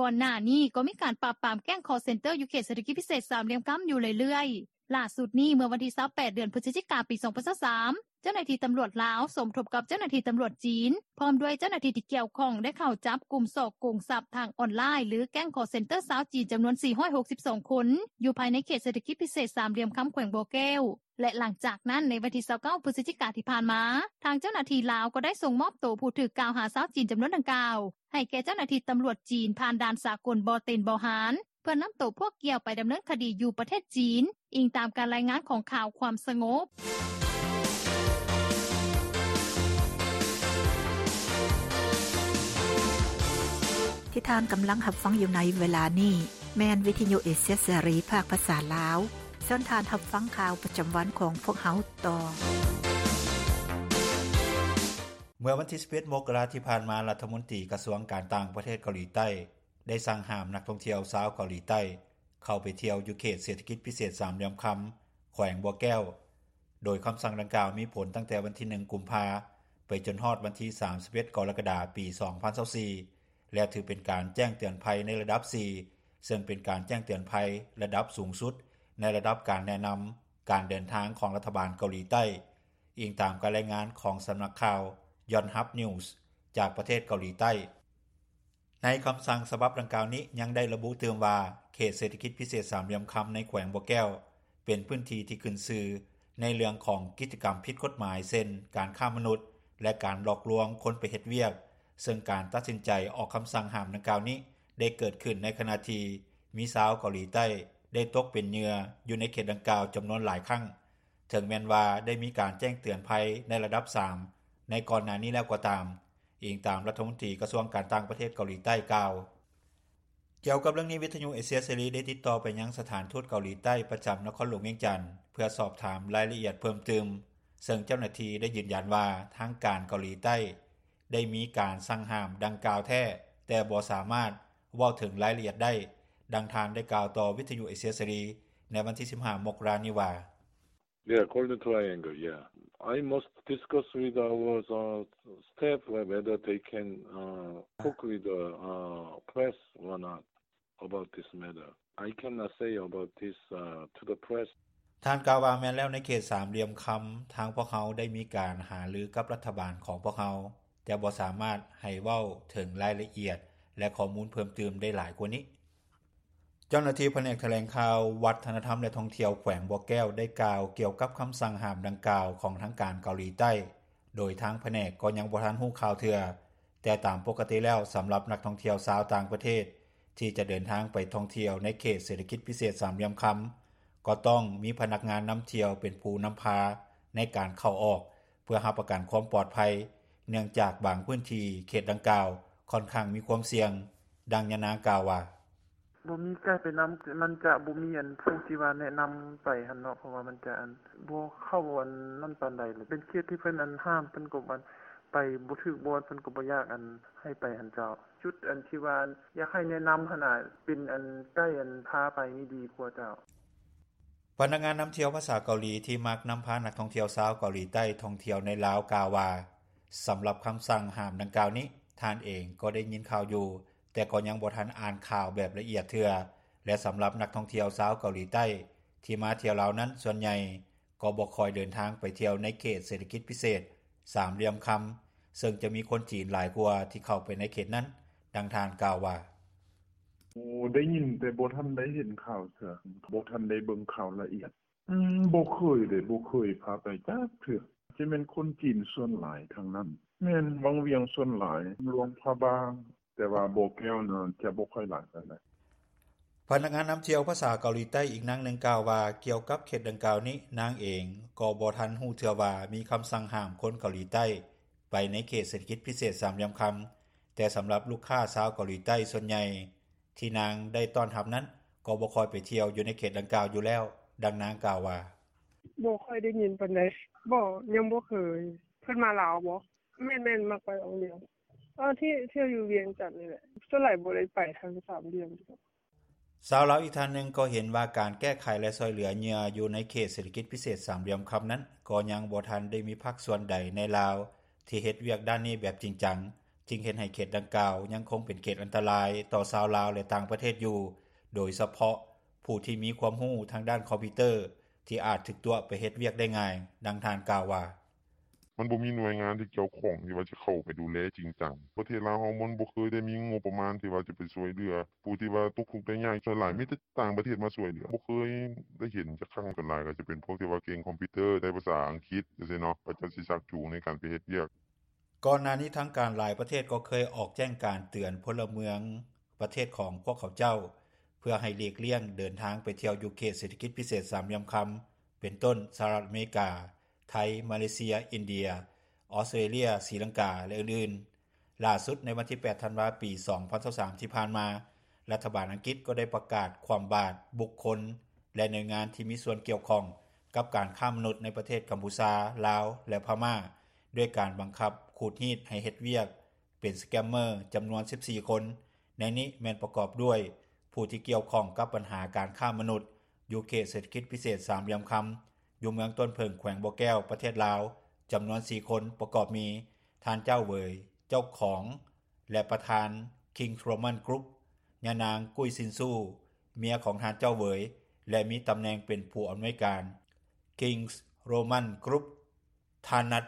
ກ່ອນໜ້ານີ້ກໍມີການປາບປາມແກ້ງຄໍເຊັນເຕີຢູ່ເຂດເສດຖະກິດພິເສດສາມຫຼ່ຽມຄຳຢູ່ເລື້ອຍໆ. ຫຼ້າສຸດນີ້ເມື່ອວັນທີຊາວແປດ ເດືອນພຶສຈິກາ ປີສອງພັນຊາວສາມ ເຈົ້າໜ້າທີ່ຕຳຫຼວດລາວສົມທົບກັບເຈົ້າໜ້າທີ່ຕຳຫຼວດຈີນ ພ້ອມດ້ວຍເຈົ້າໜ້າທີ່ທີ່ກ່ຽວຂ້ອງ ໄດ້ເຂົ້າຈັບກຸ່ມສໍ້ໂກງຊັບທາງອອນລາຍ ຫຼື ແກ້ງຄໍເຊັນເຕີຊາວຈີນ ຈຳນວນສີ່ຮ້ອຍຫົກສິບສອງຄົນ ຢູ່ພາຍໃນເຂດເສດຖະກິດພິເສດສາມຫຼ່ຽມຄຳແຂວງບໍ່ແກ້ວ ແລະ ຫຼັງຈາກນັ້ນໃນວັນທີຊາວເກົ້າ ພຶສຈິກາທີ່ຜ່ານມາ ທາງເຈົ້າໜ້າທີ່ລາວກໍໄດ້ສົ່ງມອບໂຕຜູ້ຖືກກ່າວຫາຊາວຈີນຈຳນວນດັ່ງກ່າວ ໃຫ້ແກ່ເຈົ້າໜ້າທີ່ຕຳຫຼວດຈີນ ຜ່ານດ່ານສາກົນບໍ່ເຕັນບໍ່ຮານ ເພື່ອນຳໂຕພວກກ່ຽວໄປດຳເນີນຄະດີຢູ່ປະເທດຈີນ, ອີງຕາມການລາຍງານຂອງຂ່າວຄວາມສະຫງົບ. ທີ່ທ່ານກຳລັງຮັບຟັງຢູ່ໃນເວລານີ້ ແມ່ນວິທະຍຸເອເຊຍເສລີ ພາກພາສາລາວ. ເຊີນທ່ານຮັບຟັງຂ່າວປະຈຳວັນຂອງພວກເຮົາຕໍ່. ເມື່ອວັນທີສິບເອັດ ມົກກະລາທີ່ຜ່ານມາ, ລັດຖະມົນຕີກະຊວງການຕ່າງປະເທດເກົາຫຼີໃຕ້ ໄດ້ສັ່ງຫ້າມນັກທ່ອງທ່ຽວຊາວເກົາຫຼີໃຕ້ ເຂົ້າໄປທ່ຽວຢູ່ເຂດເສດຖະກິດພິເສດສາມຫຼ່ຽມຄຳ ແຂວງບໍ່ແກ້ວ, ໂດຍຄຳສັ່ງດັ່ງກ່າວມີຜົນຕັ້ງແຕ່ວັນທີໜຶ່ງ ກຸມພາ ໄປຈົນຮອດວັນທີສາມສິບເອັດ ກໍລະກະດາ ປີສອງພັນຊາວສີ່ ແລະ ຖືເປັນການແຈ້ງເຕືອນໄພໃນລະດັບສີ່ ເຊິ່ງເປັນການແຈ້ງເຕືອນໄພລະດັບສູງສຸດໃນລະດັບການແນະນຳການເດີນທາງຂອງລັດຖະບານເກົາຫຼີໃຕ້, ອີງຕາມການລາຍງານຂອງສຳນັກຂ່າວ Yonhap News ຈາກປະເທດເກົາຫຼີໃຕ້. ໃນຄຳສັ່ງສະບັບດັ່ງກ່າວນີ້ຍັງໄດ້ລະບຸຕື່ມວ່າ ເຂດເສດຖະກິດພິເສດສາມຫຼ່ຽມຄຳໃນແຂວງບໍ່ແກ້ວ ເປັນພື້ນທີ່ທີ່ຂຶ້ນຊື່ໃນເລື່ອງຂອງກິດຈະກຳຜິດກົດໝາຍ ເຊັ່ນ ການຄ້າມະນຸດ ແລະ ການຫຼອກລວງຄົນໄປເຮັດວຽກ, ເຊິ່ງການຕັດສິນໃຈອອກຄຳສັ່ງຫ້າມດັ່ງກ່າວນີ້ ໄດ້ເກີດຂຶ້ນໃນຂະນະທີ່ມີຊາວເກົາຫຼີໃຕ້ໄດ້ຕົກເປັນເຫຍື່ອຢູ່ໃນເຂດດັ່ງກ່າວຈຳນວນຫຼາຍຄັ້ງ, ເຖິງແມ່ນວ່າໄດ້ມີການແຈ້ງເຕືອນໄພໃນລະດັບສາມໃນກ່ອນໜ້ານີ້ແລ້ວກໍຕາມ. ອີງຕາມລັດຖະມົນຕີກະຊວງການຕ່າງປະເທດເກົາຫຼີໃຕ້ກ່າວ. ກ່ຽວກັບເລື່ອງນີ້, ວິທະຍຸເອເຊຍເສລີໄດ້ຕິດຕໍ່ໄປຍັງສະຖານທູດເກົາຫຼີໃຕ້ປະຈຳນະຄອນຫຼວງວຽງຈັນ ເພື່ອສອບຖາມລາຍລະອຽດເພີ່ມຕື່ມ, ເຊິ່ງເຈົ້າໜ້າທີ່ໄດ້ຢືນຢັນວ່າ ທາງການເກົາຫຼີໃຕ້ ໄດ້ມີການສັ່ງຫ້າມດັ່ງກ່າວແທ້ ແຕ່ບໍ່ສາມາດເວົ້າເຖິງລາຍລະອຽດໄດ້. ດັ່ງທ່ານໄດ້ກ່າວຕໍ່ວິທຍຸເອເຊຍເສລີໃນວັນທີສິບຫ້າ ມົກກະລານີ້ວ່າ: Yeah, Golden Triangle, yeah. I must discuss with our uh, staff whether they can uh, talk with the uh, press or not about this matter. I cannot say about this uh, to the press. ທ່ານກ່າວວ່າ ແມ່ນແລ້ວ ໃນເຂດສາມຫຼ່ຽມຄຳ ທາງພວກເຮົາໄດ້ມີການຫາລືກັບລັດຖະບານຂອງພວກເຮົາ ແຕ່ບໍ່ສາມາດໃຫ້ເວົ້າເຖິງລາຍລະອຽດ ແລະ ຂໍ້ມູນເພີ່ມຕື່ມໄດ້ຫຼາຍກວ່ານີ້. ເຈົ້າໜ້າທີ່ພະແນກຖະແຫຼງຂ່າວ ວັດທະນະທຳ ແລະ ທ່ອງທ່ຽວແຂວງບໍ່ແກ້ວ ໄດ້ກ່າວກ່ຽວກັບຄຳສັ່ງຫ້າມດັ່ງກ່າວຂອງທາງການເກົາຫຼີໃຕ້ ໂດຍທາງພະແນກກໍຍັງບໍ່ທັນຮູ້ຂ່າວເທື່ອ, ແຕ່ຕາມປົກກະຕິແລ້ວ ສຳລັບນັກທ່ອງທ່ຽວຊາວຕ່າງປະເທດ ທີ່ຈະເດີນທາງໄປທ່ອງທ່ຽວໃນເຂດເສດຖະກິດພິເສດສາມຫຼ່ຽມຄຳ ກໍຕ້ອງມີພະນັກງານນຳທ່ຽວເປັນຜູ້ນຳພາໃນການເຂົ້າອອກ ເພື່ອຮັບປະກັນຄວາມປອດໄພ ເນື່ອງຈາກບາງພື້ນທີ່ເຂດດັ່ງກ່າວ ຂ້ອນຂ້າງມີຄວາມສ່ຽງ. ດັ່ງຍານາງກ່າວວ່າ: ບໍ່ມີໄກໄປນຳ ມັນຈະບໍ່ມີອັນຜູ້ທີ່ວ່າແນະນຳໄປຫັ້ນເນາະ ເພາະວ່າມັນຈະອັນບໍ່ເຂົ້າອັນນັ້ນປານໃດ ເປັນເຂດທີ່ເພິ່ນອັນຫ້າມ ເພິ່ນກໍອັນໄປບໍ່ຖືກບ່ອນ ເພິ່ນກໍບໍ່ຢາກອັນໃຫ້ໄປຫັ້ນເຈົ້າ. ຈຸດອັນທີ່ວ່າຢາກໃຫ້ແນະນຳຫັ້ນນະ ເປັນອັນໄກອັນພາໄປນີ້ດີກວ່າເຈົ້າ. ພະນັກງານນຳທ່ຽວພາສາເກົາຫຼີ ທີ່ມັກນຳພານັກທ່ອງທ່ຽວຊາວເກົາຫຼີໃຕ້ທ່ອງທ່ຽວໃນລາວ ກ່າວວ່າ ສຳລັບຄຳສັ່ງຫ້າມດັ່ງກ່າວນີ້ ທ່ານເອງກໍໄດ້ຍິນຂ່າວຢູ່, ແຕ່ກໍຍັງບໍ່ທັນອ່ານຂ່າວແບບລະອຽດເທື່ອ ແລະ ສຳລັບນັກທ່ອງທ່ຽວຊາວເກົາຫຼີໃຕ້ ທີ່ມາທ່ຽວລາວນັ້ນ ສ່ວນໃຫຍ່ກໍບໍ່ຄ່ອຍເດີນທາງໄປທ່ຽວໃນເຂດເສດຖະກິດພິເສດສາມຫຼ່ຽມຄຳ ເຊິ່ງຈະມີຄົນຈີນຫຼາຍກວ່າທີ່ເຂົ້າໄປໃນເຂດນັ້ນ. ດັ່ງທ່ານກ່າວວ່າ: ໂອ້ ໄດ້ຍິນ ແຕ່ບໍ່ທັນໄດ້ເຫັນຂ່າວເທື່ອ ບໍ່ທັນໄດ້ເບິ່ງຂ່າວລະອຽດ. ອືມ ບໍ່ເຄີຍເດ້ ບໍ່ເຄີຍພາໄປຈັກເທື່ອ. ຈະແມ່ນຄົນຈີນສ່ວນຫຼາຍທາງນັ້ນ. ແມ່ນ ວັງວຽງສ່ວນຫຼາຍ, ຫຼວງພະບາງ, ແຕ່ວ່າບໍ່ແກ້ວນັ້ນຈະບໍ່ຄ່ອຍຫຼາຍປານໃດ. ພະນັກງານນຳທ່ຽວພາສາເກົາຫຼີໃຕ້ອີກນາງໜຶ່ງກ່າວວ່າ ກ່ຽວກັບເຂດດັ່ງກ່າວນີ້ ນາງເອງກໍບໍ່ທັນຮູ້ເທື່ອວ່າມີຄຳສັ່ງຫ້າມຄົນເກົາຫຼີໃຕ້ໄປໃນເຂດເສດຖະກິດພິເສດສາມຫຼ່ຽມຄຳ, ແຕ່ສຳລັບລູກຄ້າຊາວເກົາຫຼີໃຕ້ສ່ວນໃຫຍ່ ທີ່ນາງໄດ້ຕ້ອນຮັບນັ້ນ ກໍບໍ່ຄ່ອຍໄປທ່ຽວຢູ່ໃນເຂດດັ່ງກ່າວຢູ່ແລ້ວ. ດັ່ງນາງກ່າວວ່າ: ບໍ່ຄ່ອຍໄດ້ຍິນປານໃດ. ບໍ່ ຍັງບໍ່ເຄີຍ. ເພິ່ນມາລາວບໍ? ແມ່ນໆ ມັກໄປວັງວຽງ. ເອີ ທີ່ ທ່ຽວຢູ່ວຽງຈັນນີ້ແຫຼະ. ສ່ວນຫຼາຍບໍ່ໄດ້ໄປທາງສາມຫຼ່ຽມ. ຊາວລາວອີກທ່ານໜຶ່ງກໍເຫັນວ່າ ການແກ້ໄຂ ແລະ ຊ່ວຍເຫຼືອເຫຍື່ອຢູ່ໃນເຂດເສດຖະກິດພິເສດສາມຫຼ່ຽມຄຳນັ້ນ ກໍຍັງບໍ່ທັນໄດ້ມີພາກສ່ວນໃດໃນລາວ ທີ່ເຮັດວຽກດ້ານນີ້ແບບຈິງຈັງ, ຈຶ່ງເຮັດໃຫ້ເຂດດັ່ງກ່າວຍັງຄົງເປັນເຂດອັນຕະລາຍຕໍ່ຊາວລາວ ແລະ ຕ່າງປະເທດຢູ່, ໂດຍສະເພາະຜູ້ທີ່ມີຄວາມຮູ້ທາງດ້ານຄອມພິວເຕີ ທີ່ອາດຖືກຕົວະໄປເຮັດວຽກໄດ້ງ່າຍ. ດັ່ງທ່ານກ່າວວ່າ: ມັນບໍ່ມີໜ່ວຍງານທີ່ກ່ຽວຂ້ອງທີ່ວ່າຈະເຂົ້າໄປດູແລຈິງຈັງ. ປະເທດລາວເຮົາມັນບໍ່ເຄີຍໄດ້ມີງົບປະມານທີ່ວ່າຈະໄປຊ່ວຍເຫຼືອຜູ້ທີ່ວ່າຕົກທຸກໄດ້ຍາກ. ສ່ວນຫຼາຍມີແຕ່ຕ່າງປະເທດມາຊ່ວຍເຫຼືອ. ບໍ່ເຄີຍໄດ້ເຫັນຈັກຄັ້ງ. ສ່ວນຫຼາຍກໍຈະເປັນພວກທີ່ວ່າເກັ່ງຄອມພິວເຕີ ໄດ້ພາສາອັງກິດຈັ່ງຊີ້ເນາະ, ເຂົາເຈົ້າຊິຊັກຈູງໃນການໄປເຮັດວຽກ. ກ່ອນໜ້ານີ້ທາງການຫຼາຍປະເທດກໍເຄີຍອອກແຈ້ງການເຕືອນພົນລະເມືອງປະເທດຂອງພວກເຂົາເຈົ້າ ເພື່ອໃຫ້ຫຼີກລ່ຽງເດີນທາງໄປທ່ຽວຢູ່ເຂດເສດຖະກິດພິເສດສາມຫຼ່ຽມຄຳ ເປັນຕົ້ນ ສະຫະລັດອາເມລິກາ, ໄທ, ມາເລເຊຍ, ອິນເດຍ, ອອສເຕຣເລຍ, ສີລັງກາ ແລະ ອື່ນໆ. ຫຼ້າສຸດໃນວັນທີແປດ ທັນວາ ປີສອງພັນຊາວສາມ ທີ່ຜ່ານມາ, ລັດຖະບານອັງກິດກໍໄດ້ປະກາດຄວ່ຳບາດບຸກຄົນ ແລະ ໜ່ວຍງານທີ່ມີສ່ວນກ່ຽວຂ້ອງກັບການຄ້າມະນຸດໃນປະເທດກຳພູຊາ, ລາວ ແລະ ພະມ້າ ດ້ວຍການບັງຄັບຂູດຮີດໃຫ້ເຮັດວຽກເປັນສະແກມເມີຈຳນວນສິບສີ່ຄົນ, ໃນນີ້ແມ່ນປະກອບດ້ວຍຜູ້ທີ່ກ່ຽວຂ້ອງກັບບັນຫາການຄ້າມະນຸດ ຢູ່ເຂດເສດຖະກິດພິເສດສາມຫຼ່ຽມຄຳ ຢູ່ເມືອງຕົ້ນເຜິ້ງ ແຂວງບໍ່ແກ້ວ ປະເທດລາວ ຈຳນວນສີ່ຄົນ ປະກອບມີ ທ່ານ ເຈົ້າເຫວີຍ ເຈົ້າຂອງ ແລະ ປະທານ ຄິງສ໌ໂຣມັນກຣຸບ, ຍານາງ ກຸ້ຍຊິນຊູ ເມຍຂອງທ່ານ ເຈົ້າເຫວີຍ ແລະ ມີຕຳແໜ່ງເປັນຜູ້ອຳນວຍການ ຄິງສ໌ໂຣມັນກຣຸບ, ທ່ານ ນັດ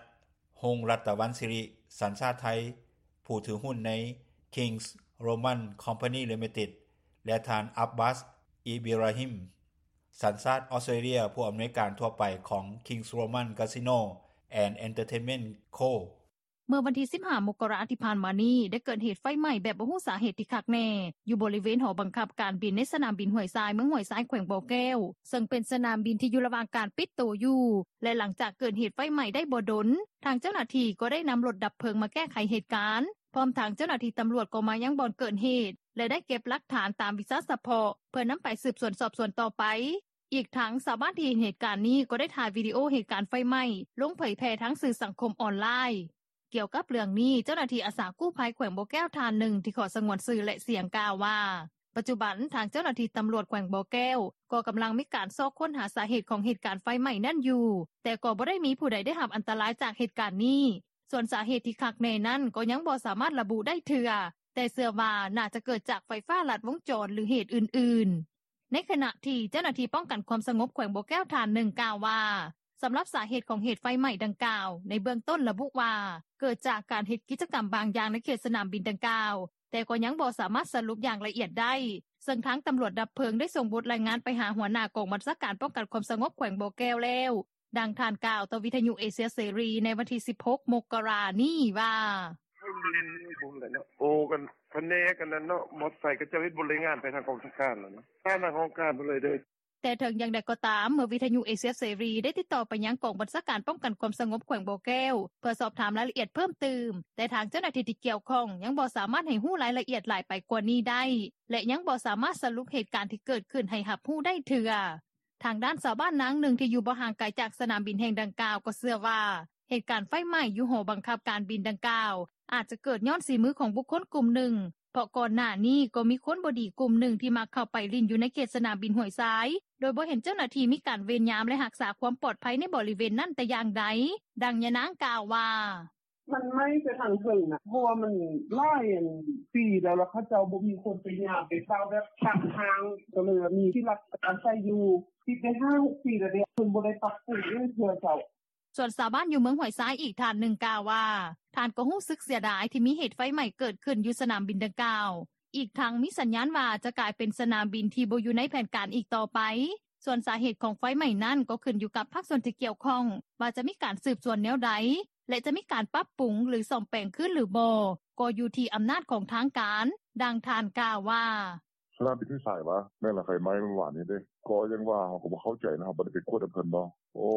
ຮົງລັດຕະວັນສິລິ ສັນຊາດໄທ ຜູ້ຖືຫຸ້ນໃນ ຄິງສ໌ໂຣມັນຄອມພານີລິມິເຕັດ ແລະ ທ່ານ ອັບບາສ ອີບີຣາຮິມ ສັນຊາດອອສເຕຣເລຍ ຜູ້ອຳນວຍການທົ່ວໄປຂອງ ຄິງສ໌ໂຣມັນກາສິໂນ ແອນ ເອັນເຕີເທນເມັນໂຄ. ເມື່ອວັນທີສິບຫ້າ ມົກກະລາ ທີ່ຜ່ານມານີ້ ໄດ້ເກີດເຫດໄຟໄໝ້ແບບບໍ່ຮູ້ສາເຫດທີ່ຄັກແນ່ ຢູ່ບໍລິເວນຫໍບັງຄັບການບິນໃນສະໜາມບິນຫ້ວຍຊາຍ ເມືອງຫ້ວຍຊາຍ ແຂວງບໍ່ແກ້ວ, ເຊິ່ງເປັນສະໜາມບິນທີ່ຢູ່ລະຫວ່າງການປິດໂຕຢູ່ ແລະ ຫຼັງຈາກເກີດເຫດໄຟໄໝ້ໄດ້ບໍ່ດົນ, ທາງເຈົ້າໜ້າທີ່ກໍໄດ້ນຳລົດດັບເພີງມາແກ້ໄຂເຫດການ, ພ້ອມທັງເຈົ້າໜ້າທີ່ຕຳຫຼວດກໍມາຍັງບ່ອນເກີດເຫດ ແລະ ໄດ້ເກັບຫຼັກຖານຕາມວິຊາສະເພາະ ເພື່ອນຳໄປສືບສວນສອບສວນຕໍ່ໄປ. ອີກທັງຊາວບ້ານທີ່ເຫັນເຫດການນີ້ກໍໄດ້ຖ່າຍວິດີໂອເຫດການໄຟໄໝ້ລົງເຜີຍແຜ່ທາງສື່ສັງຄົມອອນລາຍ. ກ່ຽວກັບເລື່ອງນີ້ ເຈົ້າໜ້າທີ່ອາສາກູ້ໄພແຂວງບໍ່ແກ້ວທ່ານໜຶ່ງ ທີ່ຂໍສະຫງວນຊື່ ແລະ ສຽງ ກ່າວວ່າ ປັດຈຸບັນ ທາງເຈົ້າໜ້າທີ່ຕຳຫຼວດແຂວງບໍ່ແກ້ວ ກໍກຳລັງມີການຊອກຄົ້ນຫາສາເຫດຂອງເຫດການໄຟໄໝ້ນັ້ນຢູ່, ແຕ່ກໍບໍ່ໄດ້ມີຜູ້ໃດໄດ້ຮັບອັນຕະລາຍຈາກເຫດການນີ້. ສ່ວນສາເຫດທີ່ຄັກແນ່ນັ້ນ ກໍຍັງບໍ່ສາມາດລະບຸໄດ້ເທື່ອ, ແຕ່ເຊື່ອວ່າໜ້າຈະເກີດຈາກໄຟຟ້າລັດວົງຈອນ ຫຼື ເຫດອື່ນໆ. ໃນຂະນະທີ່ເຈົ້າໜ້າທີ່ປ້ອງກັນຄວາມສະຫງົບແຂວງບໍ່ແກ້ວທ່ານໜຶ່ງກ່າວວ່າ ສຳລັບສາເຫດຂອງເຫດໄຟໄໝ້ດັ່ງກ່າວ ໃນເບື້ອງຕົ້ນລະບຸວ່າ ເກີດຈາກການເຮັດກິດຈະກຳບາງຢ່າງໃນເຂດສະໜາມບິນດັ່ງກ່າວ, ແຕ່ກໍຍັງບໍ່ສາມາດສະຫຼຸບຢ່າງລະອຽດໄດ້, ເຊິ່ງທາງຕຳຫຼວດດັບເພີງໄດ້ສົ່ງບົດລາຍງານໄປຫາຫົວໜ້າກອງບັນຊາການປ້ອງກັນຄວາມສະຫງົບແຂວງບໍ່ແກ້ວແລ້ວ. ດັ່ງທ່ານກ່າວຕໍ່ວິທະຍຸເອເຊຍເສລີໃນວັນທີສິບຫົກ ມົກກະລານີ້ວ່າ: ໂອ້ ກັນພະແນກອັນນັ້ນເນາະ ມອດໄຊເຂົາເຈົ້າເຮັດບົດລາຍງານໄປທາງກອງບັນຊາການແລ້ວເນາະ ທາງຫ້ອງການເພິ່ນເລີຍເດີ. ແຕ່ເຖິງຢ່າງໃດກໍຕາມ ເມື່ອວິທະຍຸເອເຊຍເສລີໄດ້ຕິດຕໍ່ໄປຍັງກອງບັນຊາການປ້ອງກັນຄວາມສະຫງົບແຂວງບໍ່ແກ້ວ ເພື່ອສອບຖາມລາຍລະອຽດເພີ່ມຕື່ມ, ແຕ່ທາງເຈົ້າໜ້າທີ່ທີ່ກ່ຽວຂ້ອງຍັງບໍ່ສາມາດໃຫ້ຮູ້ລາຍລະອຽດຫຼາຍໄປກວ່ານີ້ໄດ້ ແລະ ຍັງບໍ່ສາມາດສະຫຼຸບເຫດການທີ່ເກີດຂຶ້ນໃຫ້ຮັບຮູ້ໄດ້ເທື່ອ. ທາງດ້ານຊາວບ້ານນາງໜຶ່ງທີ່ຢູ່ບໍ່ຫ່າງໄກຈາກສະໜາມບິນແຫ່ງດັ່ງກ່າວກໍເຊື່ອວ່າ ເຫດການໄຟໄໝ້ຢູ່ຫໍບັງຄັບການບິນດັ່ງກ່າວ ອາດຈະເກີດຍ້ອນສີມືຂອງບຸກຄົນກຸ່ມໜຶ່ງ, ເພາະກ່ອນໜ້ານີ້ກໍມີຄົນບໍ່ດີກຸ່ມໜຶ່ງທີ່ມັກເຂົ້າໄປຫຼິ້ນຢູ່ໃນເຂດສະໜາມບິນຫ້ວຍຊາຍ ໂດຍບໍ່ເຫັນເຈົ້າໜ້າທີ່ມີການເວນຍາມ ແລະ ຮັກສາຄວາມປອດໄພໃນບໍລິເວນນັ້ນແຕ່ຢ່າງໃດ. ດັ່ງຍານາງກ່າວວ່າ: ມັນໄໝ້ໄປທາງເທິງນະ ເພາະວ່າມັນຫຼາຍອັນປີແລ້ວ ແລ້ວເຂົາເຈົ້າບໍ່ມີຄົນໄປຍາມໄປເຝົ້າແບບຂ້າງທາງ ກໍເລີຍວ່າມີທີ່ລັກອາໄສຢູ່ ຕິດໄດ້ຫ້າຫົກປີແລ້ວເດ້ ເພິ່ນບໍ່ໄດ້ປັບປຸງຫຍັງເທື່ອເຈົ້າ. ສ່ວນຊາວບ້ານຢູ່ເມືອງຫ້ວຍຊາຍອີກທ່ານໜຶ່ງກ່າວວ່າ ທ່ານກໍຮູ້ສຶກເສຍດາຍທີ່ມີເຫດໄຟໄໝ້ເກີດຂຶ້ນຢູ່ສະໜາມບິນດັ່ງກ່າວ, ອີກທັງມີສັນຍານວ່າຈະກາຍເປັນສະໜາມບິນທີ່ບໍ່ຢູ່ໃນແຜນການອີກຕໍ່ໄປ. ສ່ວນສາເຫດຂອງໄຟໄໝ້ນັ້ນກໍຂຶ້ນຢູ່ກັບພາກສ່ວນທີ່ກ່ຽວຂ້ອງ ວ່າຈະມີການສືບສວນແນວໃດ ແລະ ຈະມີການປັບປຸງ ຫຼື ສ້ອມແປງຄືນຫຼືບໍ່ ກໍຢູ່ທີ່ອຳນາດຂອງທາງການ. ດັ່ງທ່ານກ່າວວ່າ: ສະໜາມບິນຫ້ວຍຊາຍຫວາ? ແມ່ນລະ ໄຟໄໝ້ມື້ວານນີ້ເດ້. ກໍຢ່າງວ່າ ເຮົາກໍບໍ່ເຂົ້າໃຈນະ ເຮົາບໍ່ໄດ້ໄປກວດນຳເພິ່ນເນາະ. ໂອ້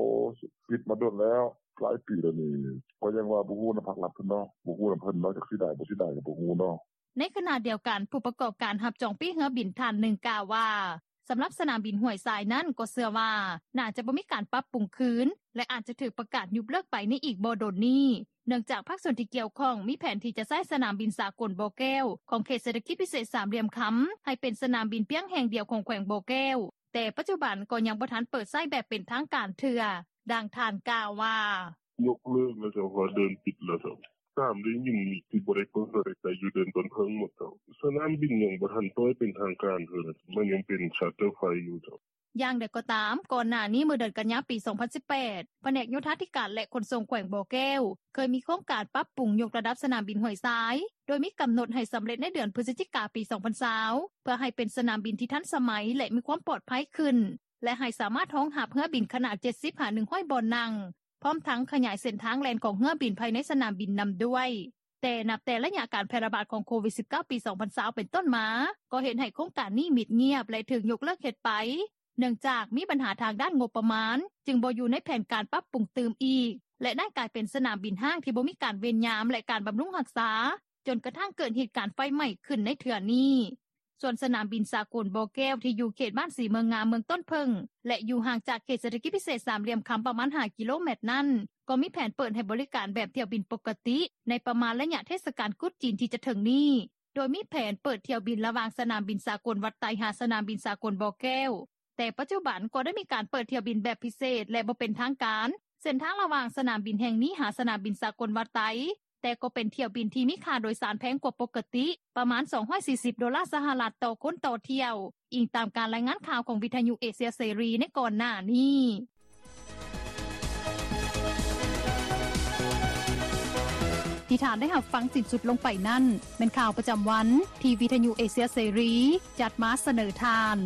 ປິດມາດົນແລ້ວ ຫຼາຍປີແລ້ວນີ້. ກໍຢ່າງວ່າ ບໍ່ຮູ້ນຳພາກລັດເພິ່ນເນາະ ບໍ່ຮູ້ນຳເພິ່ນເນາະ ຈັກເສຍດາຍບໍ່ເສຍດາຍກໍບໍ່ຮູ້ເນາະ. ໃນຂະນະດຽວກັນ ຜູ້ປະກອບການຮັບຈອງປີ້ເຮືອບິນທ່ານໜຶ່ງກ່າວວ່າ ສຳລັບສະໜາມບິນຫ້ວຍຊາຍນັ້ນກໍເຊື່ອວ່າ ໜ້າຈະບໍ່ມີການປັບປຸງຄືນ ແລະ ອາດຈະຖືກປະກາດຍຸບເລີກໄປໃນອີກບໍ່ດົນນີ້ ເນື່ອງຈາກພາກສ່ວນທີ່ກ່ຽວຂ້ອງມີແຜນທີ່ຈະໃຊ້ສະໜາມບິນສາກົນບໍ່ແກ້ວ ຂອງເຂດເສດຖະກິດພິເສດສາມຫຼ່ຽມຄຳ ໃຫ້ເປັນສະໜາມບິນພຽງແຫ່ງດຽວຂອງແຂວງບໍ່ແກ້ວ, ແຕ່ປັດຈຸບັນກໍຍັງບໍ່ທັນເປີດໃຊ້ແບບເປັນທາງການເທື່ອ. ດັ່ງທ່ານກ່າວວ່າ: ຍົກເລີກແລ້ວເຈົ້າ ເພາະວ່າເດີ່ນປິດແລ້ວເຈົ້າ. ຕາມໄດ້ຍິນນີ້ ຊິບໍ່ໄດ້ເປີດໃຊ້ຢູ່ເດີ່ນຕົ້ນເຜິ້ງໝົດເຈົ້າ. ສະໜາມບິນຍັງບໍ່ທັນປ່ອຍເປັນທາງການເທື່ອ ມັນຍັງເປັນຊາດເຕີ້ໄຟຢູ່ເຈົ້າ. ຢ່າງໃດກໍຕາມ, ກ່ອນໜ້ານີ້ເມື່ອເດືອນກັນຍາປີສອງພັນສິບແປດ ພະແນກໂຍທາທິການ ແລະ ຂົນສົ່ງແຂວງບໍ່ແກ້ວ ເຄີຍມີໂຄງການປັບປຸງຍົກລະດັບສະໜາມບິນຫ້ວຍຊາຍ ໂດຍມີກຳນົດໃຫ້ສຳເລັດໃນເດືອນພຶສຈິກາປີສອງພັນຊາວ ເພື່ອໃຫ້ເປັນສະໜາມບິນທີ່ທັນສະໄໝ ແລະ ມີຄວາມປອດໄພຂຶ້ນ ແລະ ໃຫ້ສາມາດຮອງຮັບເຮືອບິນຂະໜາດເຈັດສິບຫາໜຶ່ງຮ້ອຍບ່ອນນັ່ງ ພ້ອມທັງຂະຫຍາຍເສັ້ນທາງແລ່ນຂອງເຮືອບິນພາຍໃນສະໜາມບິນນຳດ້ວຍ. ແຕ່ນັບແຕ່ໄລຍະການແຜ່ລະບາດຂອງໂຄວິດສິບເກົ້າ ປີສອງພັນຊາວເປັນຕົ້ນມາ ກໍເຮັດໃຫ້ໂຄງການນີ້ມິດງຽບ ແລະ ຖືກຍົກເລີກເຮັດໄປ ເນື່ອງຈາກມີບັນຫາທາງດ້ານງົບປະມານ ຈຶ່ງບໍ່ຢູ່ໃນແຜນການປັບປຸງຕື່ມອີກ ແລະ ໄດ້ກາຍເປັນສະໜາມບິນຮ້າງທີ່ບໍ່ມີການເວນຍາມ ແລະ ການບຳລຸງຮັກສາ ຈົນກະທັ້ງເກີດເຫດການໄຟໄໝ້ຂຶ້ນໃນເທື່ອນີ້. ສ່ວນສະໜາມບິນສາກົນບໍ່ແກ້ວ ທີ່ຢູ່ເຂດບ້ານສີເມືອງງາມ ເມືອງຕົ້ນເຜິ້ງ ແລະ ຢູ່ຫ່າງຈາກເຂດເສດຖະກິດພິເສດສາມຫຼ່ຽມຄຳປະມານຫ້າກິໂລແມັດນັ້ນ ກໍມີແຜນເປີດໃຫ້ບໍລິການແບບຖ້ຽວບິນປົກກະຕິ ໃນປະມານໄລຍະເທດສະການກຸດຈີນທີ່ຈະເຖິງນີ້ ໂດຍມີແຜນເປີດຖ້ຽວບິນລະຫວ່າງສະໜາມບິນສາກົນວັດໄຕ ຫາສະໜາມບິນສາກົນບໍ່ແກ້ວ. ແຕ່ປັດຈຸບັນກໍໄດ້ມີການເປີດຖ້ຽວບິນແບບພິເສດ ແລະ ບໍ່ເປັນທາງການ ເສັ້ນທາງລະຫວ່າງສະໜາມບິນແຫ່ງນີ້ຫາສະໜາມບິນສາກົນວັດໄຕ ແຕ່ກໍເປັນຖ້ຽວບິນທີ່ມີຄ່າໂດຍສານແພງກວ່າປົກກະຕິ ປະມານສອງຮ້ອຍສີ່ສິບໂດລາສະຫະລັດຕໍ່ຄົນຕໍ່ຖ້ຽວ, ອີງຕາມການລາຍງານຂ່າວຂອງວິທະຍຸເອເຊຍເສລີໃນກ່ອນໜ້ານີ້. ທີ່ທ່ານໄດ້ຮັບຟັງສິ້ນສຸດລົງໄປນັ້ນ ແມ່ນຂ່າວປະຈຳວັນ ທີ່ວິທະຍຸເອເຊຍເສລີຈັດມາສະເໜີທ່ານ.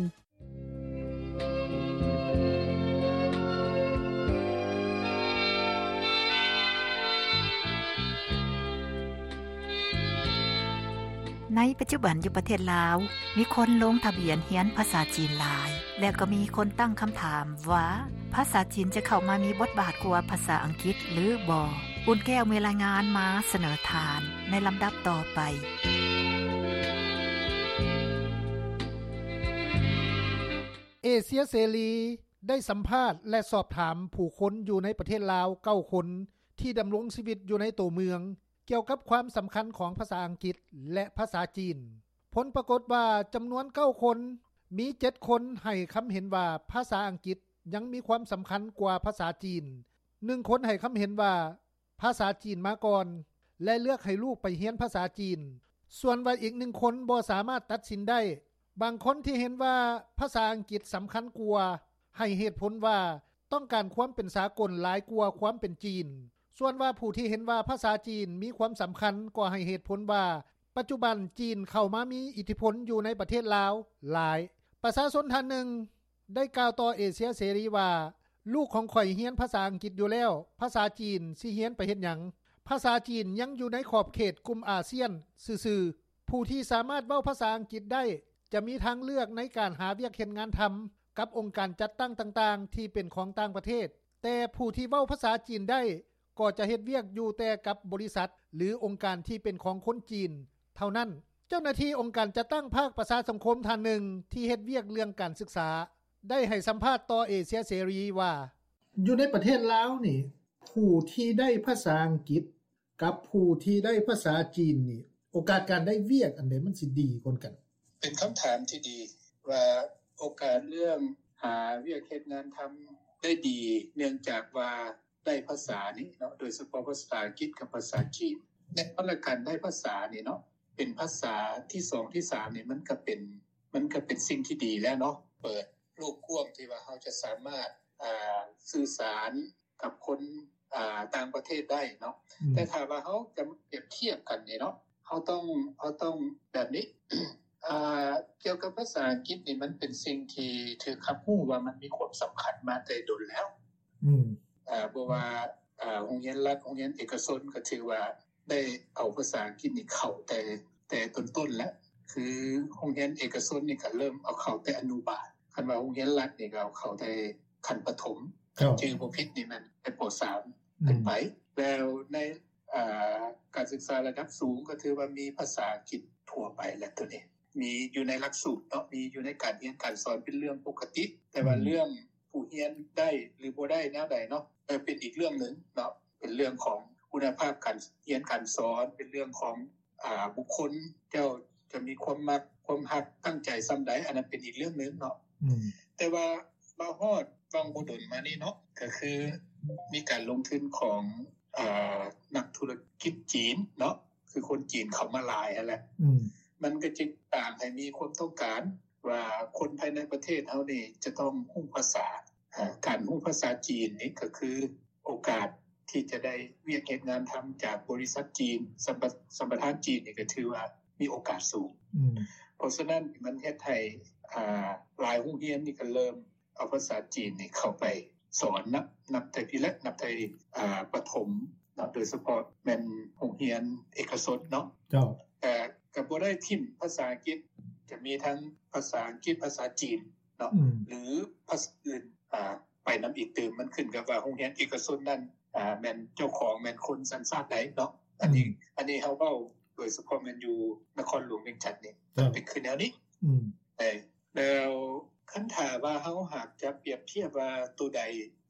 ໃນປັດຈຸບັນຢູ່ປະເທດລາວ ມີຄົນລົງທະບຽນຮຽນພາສາຈີນຫຼາຍ ແລະ ກໍມີຄົນຕັ້ງຄຳຖາມວ່າ ພາສາຈີນຈະເຂົ້າມາມີບົດບາດກວ່າພາສາອັງກິດຫຼືບໍ່? ອຸ່ນແກ້ວມີລາຍງານມາສະເໜີທ່ານໃນລຳດັບຕໍ່ໄປ. ເອເຊຍເສລີ ໄດ້ສຳພາດ ແລະ ສອບຖາມຜູ້ຄົນຢູ່ໃນປະເທດລາວເກົ້າຄົນ ທີ່ດຳລົງຊີວິດຢູ່ໃນໂຕເມືອງ ກ່ຽວກັບຄວາມສຳຄັນຂອງພາສາອັງກິດ ແລະ ພາສາຈີນ. ຜົນປາກົດວ່າຈຳນວນເກົ້າຄົນ, ມີເຈັດຄົນໃຫ້ຄຳເຫັນວ່າພາສາອັງກິດຍັງມີຄວາມສຳຄັນກວ່າພາສາຈີນ, ໜຶ່ງຄົນໃຫ້ຄຳເຫັນວ່າ ພາສາຈີນມາກ່ອນ ແລະ ເລືອກໃຫ້ລູກໄປຮຽນພາສາຈີນ, ສ່ວນວ່າອີກໜຶ່ງຄົນບໍ່ສາມາດຕັດສິນໄດ້. ບາງຄົນທີ່ເຫັນວ່າພາສາອັງກິດສຳຄັນກວ່າ ໃຫ້ເຫດຜົນວ່າຕ້ອງການຄວາມເປັນສາກົນຫຼາຍກວ່າຄວາມເປັນຈີນ. ສ່ວນວ່າຜູ້ທີ່ເຫັນວ່າພາສາຈີນມີຄວາມສຳຄັນກໍໃຫ້ເຫດຜົນວ່າ ປັດຈຸບັນຈີນເຂົ້າມາມີອິດທິພົນຢູ່ໃນປະເທດລາວຫຼາຍ. ປະຊາຊົນທ່ານໜຶ່ງ ໄດ້ກ່າວຕໍ່ເອເຊຍເສລີວ່າ, ລູກຂອງຂ້ອຍຮຽນພາສາອັງກິດຢູ່ແລ້ວ, ພາສາຈີນຊິຮຽນໄປເຮັດຫຍັງ? ພາສາຈີນຍັງຢູ່ໃນຂອບເຂດກຸ່ມອາຊຽນຊື່ໆ. ຜູ້ທີ່ສາມາດເວົ້າພາສາອັງກິດໄດ້ ຈະມີທາງເລືອກໃນການຫາວຽກເຮັດງານທຳກັບອົງການຈັດຕັ້ງຕ່າງໆທີ່ເປັນຂອງຕ່າງປະເທດ, ແຕ່ຜູ້ທີ່ເວົ້າພາສາຈີນໄດ້ ກໍຈະເຮັດວຽກຢູ່ແຕ່ກັບບໍລິສັດ ຫຼື ອົງການທີ່ເປັນຂອງຄົນຈີນເທົ່ານັ້ນ. ເຈົ້າໜ້າທີ່ອົງການຈັດຕັ້ງພາກປະຊາສັງຄົມທ່ານໜຶ່ງທີ່ເຮັດວຽກເລື່ອງການສຶກສາ ໄດ້ໃຫ້ສຳພາດຕໍ່ເອເຊຍເສລີວ່າ, ຢູ່ໃນປະເທດລາວນີ້ ຜູ້ທີ່ໄດ້ພາສາອັງກິດກັບຜູ້ທີ່ໄດ້ພາສາຈີນນີ້ ໂອກາດການໄດ້ວຽກອັນໃດມັນຊິດີກວ່າກັນ? ເປັນຄຳຖາມທີ່ດີວ່າໂອກາດເລື່ອງຫາວຽກເຮັດງານທຳໄດ້ດີ ເນື່ອງຈາກວ່າ ໄດ້ພາສານີ້ເນາະ ໂດຍສະເພາະພາສາອັງກິດກັບພາສາຈີນ. ແນ່ນອນລະ ການໄດ້ພາສານີ້ເນາະ ເປັນພາສາທີສອງທີສາມນີ້ ມັນກະເປັນ ມັນກະເປັນສິ່ງທີ່ດີແລ້ວເນາະ ເປີດໂລກກວ້າງທີ່ວ່າເຮົາຈະສາມາດ ອ່າ ສື່ສານກັບຄົນ ອ່າ ຕ່າງປະເທດໄດ້ເນາະ. ອືມ ແຕ່ຖ້າວ່າເຮົາຈະປຽບທຽບກັນນີ້ເນາະ ເຮົາຕ້ອງ ເຮົາຕ້ອງແບບນີ້ ອ່າ ກ່ຽວກັບພາສາອັງກິດນີ້ ມັນເປັນສິ່ງທີ່ຖືກຮັບຮູ້ວ່າມັນມີຄວາມສຳຄັນມາແຕ່ດົນແລ້ວ. ອືມ ອ່າ ບໍ່ວ່າ ອ່າ ໂຮງຮຽນລັດ ໂຮງຮຽນເອກະຊົນ ກໍຖືວ່າໄດ້ເອົາພາສາອັງກິດນີ້ເຂົ້າແຕ່ ແຕ່ຕົ້ນໆແລ້ວ. ຄືໂຮງຮຽນເອກະຊົນນີ້ກໍເລີ່ມເອົາເຂົ້າແຕ່ອະນຸບານ, ຄັນວ່າໂຮງຮຽນລັດນີ້ກໍເອົາເຂົ້າແຕ່ຂັ້ນປະຖົມ ຄັນຈື່ບໍ່ຜິດນີ້ແມ່ນແຕ່ ປ.ສາມ ຂຶ້ນໄປ. ແລ້ວໃນ ອ່າ ການສຶກສາລະດັບສູງກໍຖືວ່າມີພາສາອັງກິດທົ່ວໄປແລ້ວ ໂຕນີ້ມີຢູ່ໃນຫຼັກສູດເນາະ ມີຢູ່ໃນການຮຽນການສອນເປັນເລື່ອງປົກກະຕິ. ແຕ່ວ່າເລື່ອງຜູ້ຮຽນໄດ້ຫຼືບໍ່ໄດ້ແນວໃດເນາະ ເອີ ເປັນອີກເລື່ອງໜຶ່ງເນາະ ເປັນເລື່ອງຂອງຄຸນນະພາບການຮຽນການສອນ ເປັນເລື່ອງຂອງ ອ່າ ບຸກຄົນ ເຈົ້າຈະມີຄວາມມັກ ຄວາມຮັກ ຕັ້ງໃຈສ່ຳໃດ ອັນນັ້ນເປັນອີກເລື່ອງໜຶ່ງເນາະ. ອືມ ແຕ່ວ່າມາຮອດຫວ່າງບໍ່ດົນມານີ້ເນາະ ກໍຄືມີການລົງທຶນຂອງ ອ່າ ນັກທຸລະກິດຈີນເນາະ ຄືຄົນຈີນເຂົ້າມາຫຼາຍຫັ້ນແຫຼະ. ອືມ ມັນກໍຈຶ່ງສ້າງໃຫ້ມີຄວາມຕ້ອງການວ່າຄົນພາຍໃນປະເທດເຮົານີ້ຈະຕ້ອງຮູ້ພາສາ. ອາ ການຮູ້ພາສາຈີນນີ້ກໍຄືໂອກາດທີ່ຈະໄດ້ວຽກເຮັດງານທຳຈາກບໍລິສັດຈີນ ສຳປະ ສຳປະທານຈີນນີ້ກໍຖືວ່າມີໂອກາດສູງ. ອືມ ເພາະສະນັ້ນມັນເຮັດໃຫ້ ອ່າ ຫຼາຍໂຮງຮຽນນີ້ກໍເລີ່ມ ເອົາພາສາຈີນນີ້ເຂົ້າໄປສອນນະ ນັບແຕ່ພີ້ແຫຼະ ນັບແຕ່ ອ່າ ປະຖົມເນາະ ໂດຍສະເພາະແມ່ນໂຮງຮຽນເອກະຊົນເນາະ. ເຈົ້າ ແຕ່ກໍບໍ່ໄດ້ຖິ້ມພາສາອັງກິດ ຈະມີທັງພາສາອັງກິດ ພາສາຈີນເນາະ ອືມ ຫຼືພາສາອື່ນ ອ່າ ໄປນຳອີກຕື່ມ. ມັນຂຶ້ນກັບວ່າໂຮງຮຽນເອກະຊົນນັ້ນ ອ່າ ແມ່ນເຈົ້າຂອງແມ່ນຄົນສັນຊາດໃດເນາະ. ອັນນີ້ ອືມ ອັນນີ້ເຮົາເວົ້າໂດຍສະເພາະແມ່ນຢູ່ນະຄອນຫຼວງວຽງຈັນນີ້ ເຈົ້າ ເປັນຄືແນວນີ້. ອືມ ແລ້ວຄັນຖ້າວ່າເຮົາຫາກຈະປຽບທຽບວ່າໂຕໃດ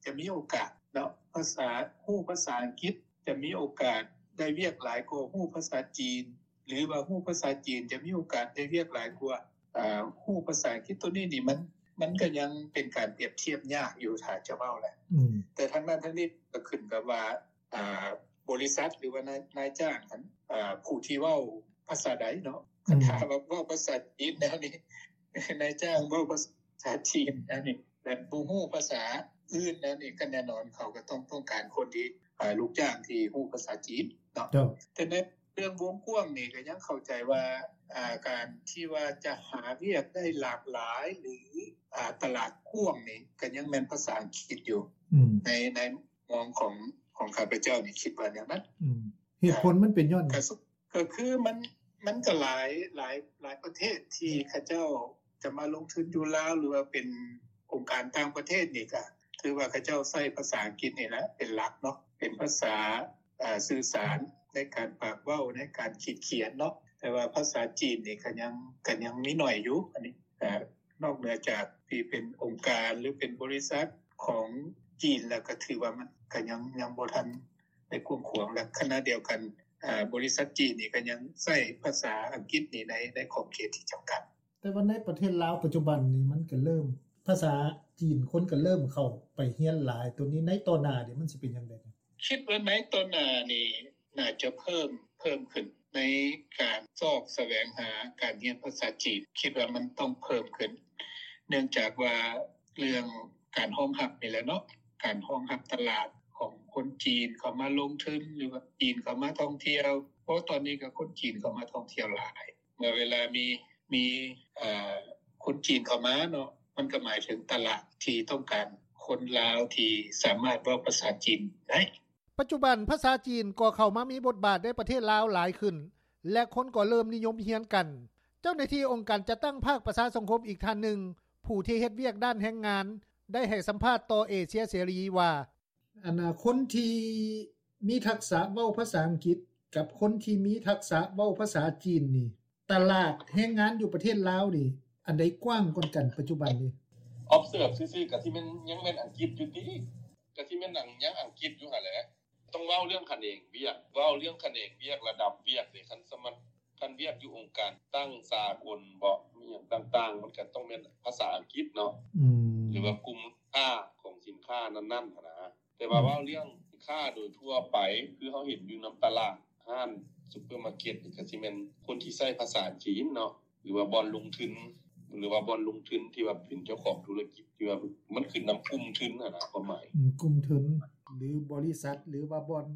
ຈະມີໂອກາດເນາະ ພາສາ ຮູ້ພາສາອັງກິດຈະມີໂອກາດໄດ້ວຽກຫຼາຍກວ່າຮູ້ພາສາຈີນ ຫຼືວ່າຮູ້ພາສາຈີນຈະມີໂອກາດໄດ້ວຽກຫຼາຍກວ່າ ເອີ ຮູ້ພາສາອັງກິດ ໂຕນີ້ນີ້ມັນ ມັນກໍຍັງເປັນການປຽບທຽບຍາກຢູ່ ຖ້າຈະເວົ້າແຫຼະ. ອືມ ແຕ່ທັງນັ້ນທັງນີ້ກໍຂຶ້ນກັບວ່າ ອ່າ ບໍລິສັດ ຫຼືວ່ານາຍ ນາຍຈ້າງຫັ້ນ ອ່າ ຜູ້ທີ່ເວົ້າພາສາໃດເນາະ. ອືມ ຄັນຖ້າວ່າເວົ້າພາສາຈີນແນວນີ້ ນາຍຈ້າງເວົ້າພາສາຈີນແນວນີ້ ແລະ ບໍ່ຮູ້ພາສາອື່ນແນວນີ້ ກໍແນ່ນອນເຂົາກໍຕ້ອງ ຕ້ອງການຄົນທີ່ ອ່າ ລູກຈ້າງທີ່ຮູ້ພາສາຈີນເນາະ. ເຈົ້າ ແຕ່ໃນເລື່ອງວົງກວ້າງນີ້ກໍຍັງເຂົ້າໃຈວ່າ ອ່າ ການທີ່ວ່າຈະຫາວຽກໄດ້ຫຼາກຫຼາຍ ຫຼື ອ່າ ຕະຫຼາດກວ້າງນີ້ ກໍຍັງແມ່ນພາສາອັງກິດຢູ່. ອືມ ໃນ ໃນ ມອງຂອງ ຂອງຂ້າພະເຈົ້ານີ້ຄິດວ່າແນວນັ້ນ. ອືມ ເຫດຜົນມັນເປັນຍ້ອນຫຍັງ? ກໍ ກໍຄືມັນ ມັນກໍຫຼາຍ ຫຼາຍ ຫຼາຍປະເທດທີ່ເຂົາເຈົ້າຈະມາລົງທຶນຢູ່ລາວ ຫຼືວ່າເປັນອົງການຕ່າງປະເທດນີ້ ກໍຖືວ່າເຂົາເຈົ້າໃຊ້ພາສາອັງກິດນີ້ແຫຼະເປັນຫຼັກເນາະ ເປັນພາສາ ອ່າ ສື່ສານໃນການປາກເວົ້າ ໃນການຂີດຂຽນເນາະ. ແຕ່ວ່າພາສາຈີນນີ້ກໍຍັງ ກໍຍັງມີໜ້ອຍຢູ່ ອັນນີ້ ອ່າ ນອກເໜືອຈາກທີ່ເປັນອົງການ ຫຼື ເປັນບໍລິສັດຂອງຈີນແລ້ວ ກໍຖືວ່າມັນກໍຍັງ ຍັງບໍ່ທັນ ໄດ້ກວ້າງຂວາງ ແລະຂະນະດຽວກັນ ອາ ບໍລິສັດຈີນນີ້ກໍຍັງໃຊ້ພາສາອັງກິດນີ້ໃນ ໃນຂອບເຂດທີ່ຈຳກັດ. ແຕ່ວ່າໃນປະເທດລາວປັດຈຸບັນນີ້ ມັນກໍເລີ່ມ ພາສາຈີນ ຄົນກໍເລີ່ມເຂົ້າໄປຮຽນຫຼາຍ. ໂຕນີ້ໃນຕໍ່ໜ້ານີ້ມັນຊິເປັນຈັ່ງໃດ? ຄິດວ່າໃນຕໍ່ໜ້ານີ້ໜ້າຈະເພີ່ມ ເພີ່ມຂຶ້ນໃນການຊອກສະແຫວງຫາການຮຽນພາສາຈີນ ຄິດວ່າມັນຕ້ອງເພີ່ມຂຶ້ນ ເນື່ອງຈາກວ່າເລື່ອງການຮອງຮັບນີ້ແຫຼະເນາະ ການຮອງຮັບຕະຫຼາດຂອງຄົນຈີນເຂົ້າມາລົງທຶນ ຫຼືວ່າຈີນເຂົ້າມາທ່ອງທ່ຽວ ເພາະຕອນນີ້ກໍຄົນຈີນເຂົ້າມາທ່ອງທ່ຽວຫຼາຍ. ເມື່ອເວລາມີ ມີ ເອີ ຄົນຈີນເຂົ້າມາເນາະ ມັນກໍໝາຍເຖິງຕະຫຼາດທີ່ຕ້ອງການຄົນລາວທີ່ສາມາດເວົ້າພາສາຈີນໄດ້. ປັດຈຸບັນພາສາຈີນກໍເຂົ້າມາມີບົດບາດໃນປະເທດລາວຫຼາຍຂຶ້ນ ແລະຄົນກໍເລີ່ມນິຍົມຮຽນກັນ. ເຈົ້າໜ້າທີ່ອົງການຈັດຕັ້ງພາກປະຊາສັງຄົມອີກທ່ານໜຶ່ງ ຜູ້ທີ່ເຮັດວຽກດ້ານແຮງງານ ໄດ້ໃຫ້ສຳພາດຕໍ່ເອເຊຍເສລີວ່າ ອັນນ່າ ຄົນທີ່ມີທັກສະເວົ້າພາສາອັງກິດກັບຄົນທີ່ມີທັກສະເວົ້າພາສາຈີນນີ້ ຕະຫຼາດແຮງງານຢູ່ປະເທດລາວນີ້ ອັນໃດກວ້າງກວ່າກັນປັດຈຸບັນນີ້? Observe ຊື່ໆ ກະຊິແມ່ນ ຍັງແມ່ນອັງກິດຢູ່ຕິ? ກະຊິແມ່ນຫຍັງ ຍັງອັງກິດຢູ່ຫັ້ນແຫຼະ. ຕ້ອງເວົ້າເລື່ອງຂະແໜງວຽກ ເວົ້າເລື່ອງຂະແໜງວຽກ ລະດັບວຽກເດ ຄັນສະມັດ ຄັນວຽກຢູ່ອົງການຕັ້ງສາກົນເບາະ ມີຫຍັງຕ່າງໆ ມັນກະຕ້ອງແມ່ນພາສາອັງກິດເນາະ ອືມ ຫຼືວ່າກຸ່ມຄ້າຂອງສິນຄ້ານັ້ນໆ ຫັ້ນນະ. ແຕ່ວ່າ ອືມ ເວົ້າເລື່ອງຄ້າໂດຍທົ່ວໄປ ຄືເຮົາເຫັນຢູ່ນຳຕະຫຼາດ ຮ້ານຊຸບເປີມາເກັດນີ້ ກະຊິແມ່ນຄົນທີ່ໃຊ້ພາສາຈີນເນາະ ຫຼືວ່າບ່ອນລົງທຶນ ຫຼືວ່າບ່ອນລົງທຶນທີ່ວ່າເປັນເຈົ້າຂອງທຸລະກິດ ທີ່ວ່າມັນຂຶ້ນນຳກຸ່ມທຶນຫັ້ນນະ ຄວາມໝາຍ ອືມ ກຸ່ມທຶນ ຫຼືບໍລິສັດ ຫຼືວ່າບ່ອນ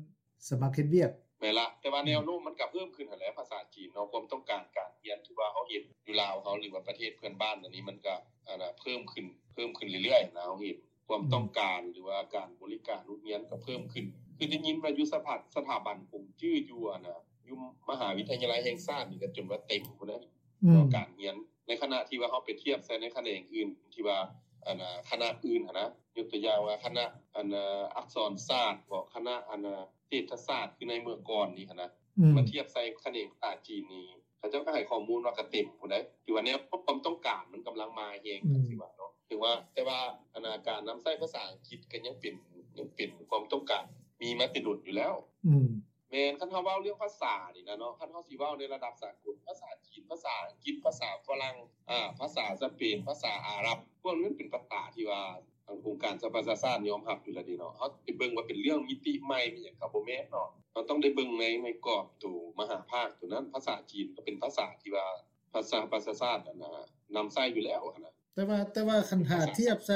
ສະໝັກເຮັດວຽກ. ແມ່ນລະ ແຕ່ວ່າ ອືມ ແນວໂນ້ມມັນກະເພີ່ມຂຶ້ນຫັ້ນແຫຼະ ພາສາຈີນເນາະ ຄວາມຕ້ອງການການຮຽນທີ່ວ່າເຮົາເຫັນຢູ່ລາວເຮົາ ຫຼືວ່າປະເທດເພື່ອນບ້ານອັນນີ້ ມັນກະ ອັນນ່າ ເພີ່ມຂຶ້ນ ເພີ່ມຂຶ້ນເລື້ອຍໆນະ ເຮົາເຫັນຄວາມ ອືມ ຕ້ອງການ ຫຼືວ່າການບໍລິການໂຮງຮຽນກະເພີ່ມຂຶ້ນ. ຄືໄດ້ຍິນວ່າຢູ່ສະຖາ ສະຖາບັນກົງຈື່ຢູ່ ອັນນ່າ ຢູ່ມະຫາວິທະຍາໄລແຫ່ງຊາດນີ້ກະຈົນວ່າເຕັມພຸ້ນນະ ອືມ ການຮຽນ ໃນຂະນະທີ່ວ່າເຮົາໄປທຽບໃສ່ໃນຂະແໜງອື່ນທີ່ວ່າ ອັນນ່າ ຄະນະອື່ນຫັ້ນນະ ຍົກຕົວຢ່າງວ່າຄະນະ ອັນນ່າ ອັກສອນສາດເບາະ ຄະນະ ອັນນ່າ ເສດຖະສາດ ຄືໃນເມື່ອກ່ອນນີ້ຫັ້ນນະ ອືມ ມາທຽບໃສ່ຂະແໜງພາສາຈີນນີ້ ເຂົາເຈົ້າກໍໃຫ້ຂໍ້ມູນວ່າກະເຕັມພຸ້ນໃດ໋ ຖືວ່າແນວຄວາມຕ້ອງການມັນກຳລັງມາແຮງ ອືມ ຈັ່ງຊີ້ວ່າເນາະ ເຖິງວ່າ ແຕ່ວ່າ ອັນນ່າ ການນຳໃຊ້ພາສາອັງກິດກໍຍັງເປັນ ຍັງເປັນຄວາມຕ້ອງການ ມີມາແຕ່ດົນຢູ່ແລ້ວ ອືມ ແມ່ນ ຄັນເຮົາເວົ້າເລື່ອງພາສານີ້ນະເນາະ ຄັນເຮົາຊິເວົ້າໃນລະດັບສາກົນ ພາສາຈີນ ພາສາອັງກິດ ພາສາຝຣັ່ງ ອາ ພາສາສະເປນ ພາສາອາຣັບ ພວກນີ້ມັນເປັນພາສາທີ່ວ່າ ອົງການສະຫະປະຊາຊາດຍອມຮັບຢູ່ແລ້ວເດເນາະ. ເຮົາໄປເບິ່ງວ່າເປັນເລື່ອງມິຕິໃໝ່ ມີຫຍັງກໍບໍ່ແມ່ນເນາະ. ເຮົາຕ້ອງໄດ້ເບິ່ງໃນ ໃນກອບໂຕມະຫາພາກໂຕນັ້ນ. ພາສາຈີນກໍເປັນພາສາທີ່ວ່າ ພາສາ ສະຫະປະຊາຊາດ ອັນນ່າ ນຳໃຊ້ຢູ່ແລ້ວຫັ້ນນະ. ແຕ່ວ່າ ແຕ່ວ່າຄັນຖ້າທຽບໃສ່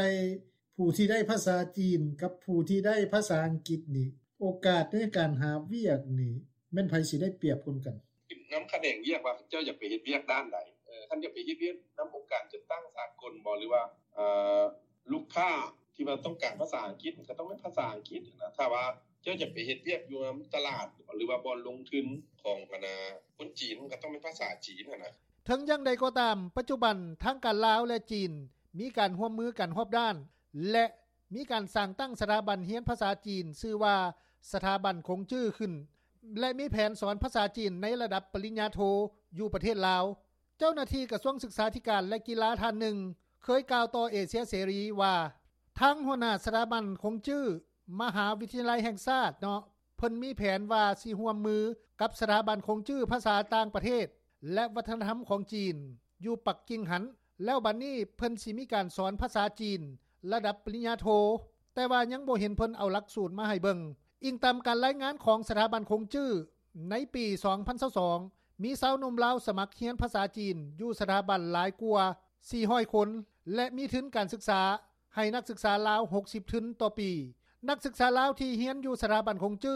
ຜູ້ທີ່ໄດ້ພາສາຈີນກັບຜູ້ທີ່ໄດ້ພາສາອັງກິດນີ້ ໂອກາດໃນການຫາວຽກນີ້ ແມ່ນໃຜຊິໄດ້ປຽບກ່ອນກັນ? ຂຶ້ນນຳຂະແໜງວຽກວ່າເຈົ້າຢາກໄປເຮັດວຽກດ້ານໃດ. ເອີ ຄັນຢາກໄປເຮັດວຽກນຳອົງການຈັດຕັ້ງສາກົນບໍ ຫຼືວ່າ ເອີ ລູກຄ້າທີ່ວ່າຕ້ອງການພາສາອັງກິດ ມັນກໍຕ້ອງແມ່ນພາສາອັງກິດຫັ້ນນະ. ຖ້າວ່າເຈົ້າຢາກໄປເຮັດວຽກຢູ່ນຳຕະຫຼາດ ຫຼືວ່າບ່ອນລົງທຶນຂອງ ອັນນ່າ ຄົນຈີນ ມັນກໍຕ້ອງແມ່ນພາສາຈີນຫັ້ນນະ. ເຖິງຢ່າງໃດກໍຕາມ, ປັດຈຸບັນທາງການລາວ ແລະ ຈີນ ມີການຮ່ວມມືກັນຮອບດ້ານ ແລະ ມີການສ້າງຕັ້ງສະຖາບັນຮຽນພາສາຈີນ ຊື່ວ່າ ສະຖາບັນຄົງຈື່ ຂຶ້ນ ແລະ ມີແຜນສອນພາສາຈີນໃນລະດັບປະລິນຍາໂທຢູ່ປະເທດລາວ. ເຈົ້າໜ້າທີ່ກະຊວງສຶກສາທິການ ແລະ ກິລາທ່ານໜຶ່ງ ເຄີຍກ່າວຕໍ່ເອເຊຍເສລີວ່າ ທາງຫົວໜ້າສະຖາບັນຄົງຈື່ ມະຫາວິທະຍາໄລແຫ່ງຊາດເນາະ ເພິ່ນມີແຜນວ່າຊິຮ່ວມມືກັບສະຖາບັນຄົງຈື່ພາສາຕ່າງປະເທດ ແລະ ວັດທະນະທຳຂອງຈີນ ຢູ່ປັກກິ່ງຫັ້ນ ແລ້ວບັດນີ້ເພິ່ນຊິມີການສອນພາສາຈີນລະດັບປະລິນຍາໂທ, ແຕ່ວ່າຍັງບໍ່ເຫັນເພິ່ນເອົາຫຼັກສູດມາໃຫ້ເບິ່ງ. ອີງຕາມການລາຍງານຂອງສະຖາບັນຄົງຈື່, ໃນປີສອງພັນຊາວສອງ ມີຊາວໜຸ່ມລາວສະໝັກຮຽນພາສາຈີນຢູ່ສະຖາບັນຫຼາຍກວ່າສີ່ຮ້ອຍຄົນ ແລະ ມີທຶນການສຶກສາໃຫ້ນັກສຶກສາລາວຫົກສິບທຶນຕໍ່ປີ. ນັກສຶກສາລາວທີ່ຮຽນຢູ່ສະຖາບັນຄົງຈື່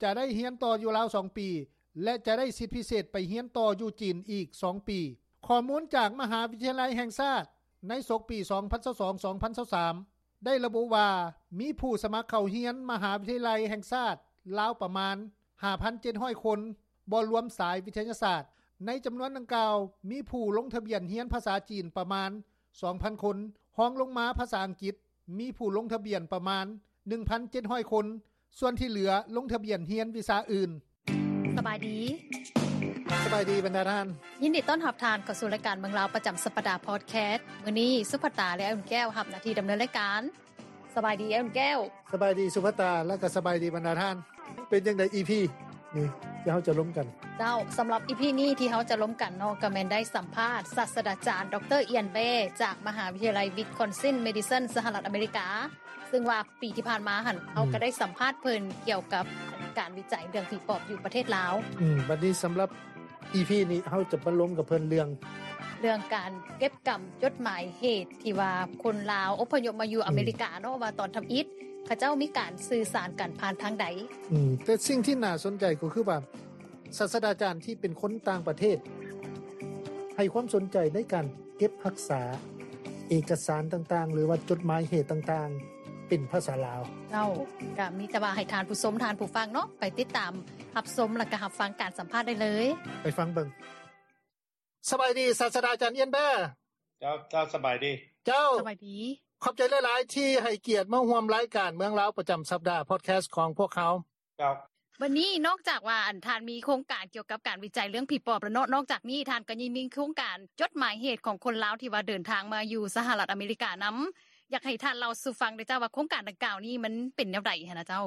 ຈະໄດ້ຮຽນຕໍ່ຢູ່ລາວສອງປີ ແລະ ຈະໄດ້ສິດພິເສດໄປຮຽນຕໍ່ຢູ່ຈີນອີກສອງປີ. ຂໍ້ມູນຈາກມະຫາວິທະຍາໄລແຫ່ງຊາດໃນສົກປີສອງພັນຊາວສອງ ສອງພັນຊາວສາມ ໄດ້ລະບຸວ່າ ມີຜູ້ສະໝັກເຂົ້າຮຽນມະຫາວິທະຍາໄລແຫ່ງຊາດລາວປະມານຫ້າພັນເຈັດຮ້ອຍຄົນ, ບໍ່ລວມສາຍວິທະຍາສາດ. ໃນຈຳນວນດັ່ງກ່າວ ມີຜູ້ລົງທະບຽນຮຽນພາສາຈີນປະມານສອງພັນຄົນ, ຮອງລົງມາພາສາອັງກິດ ມີຜູ້ລົງທະບຽນປະມານໜຶ່ງພັນເຈັດຮ້ອຍຄົນ, ສ່ວນທີ່ເຫຼືອລົງທະບຽນຮຽນວິຊາອື່ນ. ສະບາຍດີ. ສະບາຍດີບັນດາທ່ານ. ຍິນດີຕ້ອນຮັບທ່ານເຂົ້າສູ່ລາຍການເມືອງລາວປະຈຳສັບປະດາພອດແຄສ. ມື້ນີ້ສຸພັດຕາ ແລະ ອາຍອຸ່ນແກ້ວຮັບໜ້າທີ່ດຳເນີນລາຍການ. ສະບາຍດີ ອາຍອຸ່ນແກ້ວ. ສະບາຍດີສຸພັດຕາ ແລະ ກໍສະບາຍດີບັນດາທ່ານ. ເປັນຈັ່ງໃດ ອີພີ ນີ້ທີ່ເຮົາຈະລົມກັນ? ເຈົ້າ, ສຳລັບ ອີພີ ນີ້ທີ່ເຮົາຈະລົມກັນເນາະ ກໍແມ່ນໄດ້ສຳພາດສາດສະດາຈານ ດຣ ອຽນ ແບ ຈາກມະຫາວິທະຍາໄລ Wisconsin Madison ສະຫະລັດອາເມລິກາ, ເຊິ່ງວ່າປີທີ່ຜ່ານມາຫັ້ນ ເຮົາກໍໄດ້ສຳພາດເພິ່ນກ່ຽວກັບການວິໄຈເລື່ອງຜີປອບຢູ່ປະເທດລາວ. ອືມ, ບັດນີ້ສຳລັບ ອີພີ ນີ້ ເຮົາຈະມາລົມກັບເພິ່ນເລື່ອງ ເລື່ອງການເກັບກຳຈົດໝາຍເຫດທີ່ວ່າຄົນລາວອົບພະຍົບມາຢູ່ອາເມລິກາເນາະ ວ່າຕອນທຳອິດເຂົາເຈົ້າມີການສື່ສານກັນຜ່ານທາງໃດ. ອືມ, ແຕ່ສິ່ງທີ່ໜ້າສົນໃຈກໍຄືວ່າ ສາດສະດາຈານທີ່ເປັນຄົນຕ່າງປະເທດ ໃຫ້ຄວາມສົນໃຈໃນການເກັບຮັກສາເອກະສານຕ່າງໆ ຫຼືວ່າຈົດໝາຍເຫດຕ່າງໆ ເປັນພາສາລາວ. ເຈົ້າ, ກໍມີແຕ່ວ່າໃຫ້ທ່ານຜູ້ຊົມ, ທ່ານຜູ້ຟັງເນາະ ໄປຕິດຕາມ ຮັບຊົມ ແລະກະຮັບຟັງການສຳພາດໄດ້ເລີຍ. ໄປຟັງເບິ່ງ. ສະບາຍດີ ສາດສະດາຈານ ອຽນ ແບ. ເຈົ້າ, ເຈົ້າ, ສະບາຍດີ. ເຈົ້າ, ສະບາຍດີ. ຂອບໃຈຫຼາຍໆ ທີ່ໃຫ້ກຽດມາຮ່ວມລາຍການເມືອງລາວປະຈຳສັບດາ ພອດແຄສຂອງພວກເຮົາ. ເຈົ້າ. ບັດນີ້ນອກຈາກວ່າ ອັນ ທ່ານມີໂຄງການກ່ຽວກັບການວິໄຈເລື່ອງຜີປອບແລ້ວເນາະ, ນອກຈາກນີ້ທ່ານກໍຍັງມີໂຄງການຈົດໝາຍເຫດຂອງຄົນລາວທີ່ວ່າເດີນທາງມາຢູ່ສະຫະລັດອາເມລິການຳ. ຢາກໃຫ້ທ່ານເລົ່າສູ່ຟັງໄດ້ເຈົ້າວ່າ ໂຄງການດັ່ງກ່າວນີ້ມັນເປັນແນວໃດຫັ້ນນະເຈົ້າ?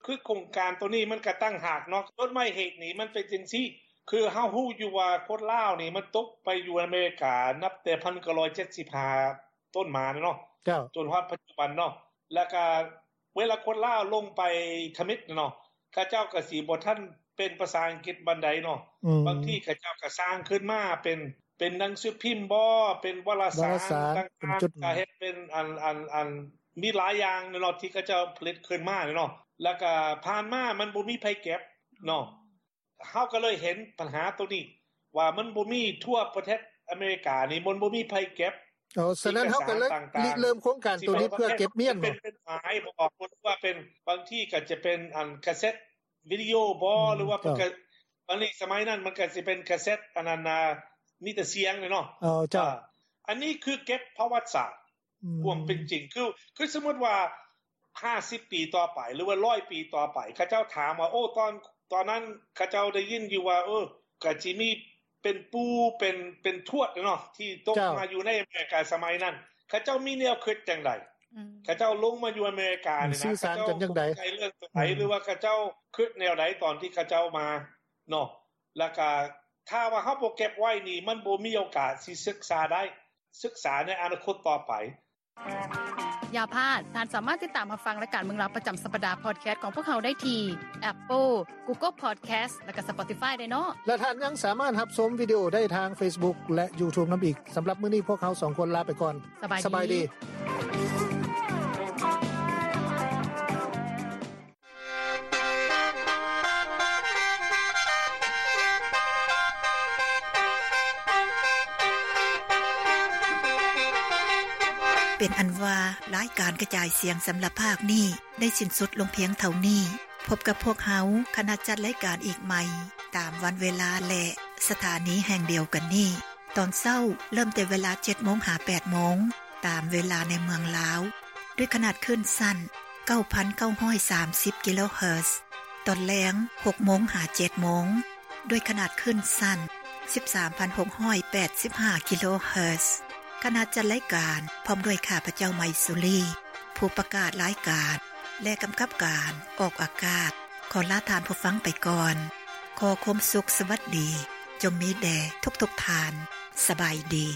ຄືໂຄງການໂຕນີ້ມັນກະຕ່າງຫາກເນາະ. ຈົດໝາຍເຫດນີ້ມັນເປັນຈັ່ງຊີ້, ຄືເຮົາຮູ້ຢູ່ວ່າຄົນລາວນີ້ມັນຕົກໄປຢູ່ອາເມລິການັບແຕ່ພັນເກົ້າຮ້ອຍເຈັດສິບຫ້າຕົ້ນມາເນາະ, ເຈົ້າ, ຈົນຮອດປັດຈຸບັນເນາະ. ແລ້ວກະເວລາຄົນລາວລົງໄປທຳອິດເນາະ, ເຂົາເຈົ້າກະຊິບໍ່ທັນເປັນພາສາອັງກິດປານໃດເນາະ. ອືມ. ບາງທີເຂົາເຈົ້າກະສ້າງຂຶ້ນມາເປັນ ເປັນໜັງສືພິມບໍ, ເປັນວາລະສານ ວາລະສານຕ່າງໆ, ເປັນຈົດໝາຍ, ກະເຮັດເປັນອັນ ອັນ ອັນ ມີຫຼາຍຢ່າງເນາະ ທີ່ເຂົາເຈົ້າຜະລິດຂຶ້ນມາເນາະ. ແລ້ວກະຜ່ານມາມັນບໍ່ມີໃຜເກັບເນາະ. ເຮົາກໍເລີຍເຫັນບັນຫາໂຕນີ້ ວ່າມັນບໍ່ມີທົ່ວປະເທດອາເມລິການີ້, ມັນບໍ່ມີໃຜເກັບ. ອໍ, ສະນັ້ນເຮົາກໍເລີຍລິເລີ່ມໂຄງການໂຕນີ້ເພື່ອເກັບມ້ຽນບໍ? ເປັນ ເປັນໝາຍບໍ ຫຼືວ່າເປັນ ບາງທີກໍຈະເປັນອັນກາເຊັດ ວິດີໂອບໍ ອືມ ຫຼືວ່າເພິ່ນກໍ ເຈົ້າ ອັນນີ້ສະໄໝນັ້ນມັນກໍຊິເປັນກາເຊັດ ອັນນັ້ນນະ ມີແຕ່ສຽງເນາະ. ເອີ ເຈົ້າ ອ່າ ອັນນີ້ຄືເກັບປະຫວັດສາດ ອືມ ຄວາມເປັນຈິງ ຄື ຄືສົມມຸດວ່າຫ້າສິບປີຕໍ່ໄປ ຫຼືວ່າຮ້ອຍປີຕໍ່ໄປ ເຂົາເຈົ້າຖາມວ່າ ໂອ້ ຕອນ ຕອນນັ້ນເຂົາເຈົ້າໄດ້ຍິນຢູ່ວ່າ ເອີ ກໍຊິມີ ເປັນປູ່ ເປັນ ເປັນທວດເນາະ ທີ່ຕົກ ເຈົ້າ ມາຢູ່ໃນອາເມລິກາສະໄໝນັ້ນ ເຂົາເຈົ້າມີແນວຄິດຈັ່ງໃດ? ອືມ ເຂົາເຈົ້າລົງມາຢູ່ອາເມລິການີ້ນະ ສື່ສານກັນຈັ່ງໃດ? ເຂົາເຈົ້າຕົກໃຈເລື່ອງຕົວໃດ ອືມ ຫຼືວ່າເຂົາເຈົ້າຄິດແນວໃດຕອນທີ່ເຂົາເຈົ້າມາເນາະ? ແລ້ວກະຖ້າວ່າເຮົາບໍ່ເກັບໄວ້ນີ້ ມັນບໍ່ມີໂອກາດຊິສຶກສາໄດ້ ສຶກສາໃນອະນາຄົດຕໍ່ໄປ. ຢ່າພາດ, ທ່ານສາມາດຕິດຕາມຮັບຟັງລາຍການເມືອງລາວປະຈຳສັບປະດາພອດແຄສຂອງພວກເຮົາໄດ້ທີ່ Apple, Google Podcast ແລະກະ Spotify ໄດ້ເນາະ ແລະທ່ານຍັງສາມາດຮັບຊົມວິດີໂອໄດ້ທາງ Facebook ແລະ YouTube ນຳອີກ. ສຳລັບມື້ນີ້ພວກເຮົາສອງຄົນລາໄປກ່ອນ. ສະບາຍດີ. ສະບາຍດີ. ເປັນອັນວ່າ ລາຍການກະຈາຍສຽງສຳລັບພາກນີ້ໄດ້ສິ້ນສຸດລົງພຽງເທົ່ານີ້. ພົບກັບພວກເຮົາ ຄະນະຈັດລາຍການອີກໃໝ່ ຕາມວັນເວລາ ແລະ ສະຖານີແຫ່ງດຽວກັນນີ້. ຕອນເຊົ້າເລີ່ມແຕ່ເວລາເຈັດໂມງຫາແປດໂມງ ຕາມເວລາໃນເມືອງລາວ ດ້ວຍຂະໜາດຄື້ນສັ້ນເກົ້າພັນເກົ້າຮ້ອຍສາມສິບກິໂລເຮີດ ຕອນແລງຫົກໂມງຫາເຈັດໂມງ ດ້ວຍຂະໜາດຄື້ນສັ້ນສິບສາມພັນຫົກຮ້ອຍແປດສິບຫ້າກິໂລເຮີດ. ຄະນະຈັດລາຍການ ພ້ອມດ້ວຍຂ້າພະເຈົ້າ ໄມສຸລີ ຜູ້ປະກາດລາຍການ ແລະ ກຳກັບການອອກອາກາດ ຂໍລາທ່ານຜູ້ຟັງໄປກ່ອນ. ຂໍຄວາມສຸກສະຫວັດດີ ຈົ່ງມີແດ່ທຸກໆທ່ານ. ສະບາຍດີ.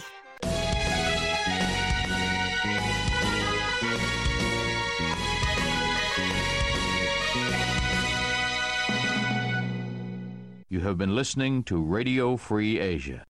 You have been listening to Radio Free Asia.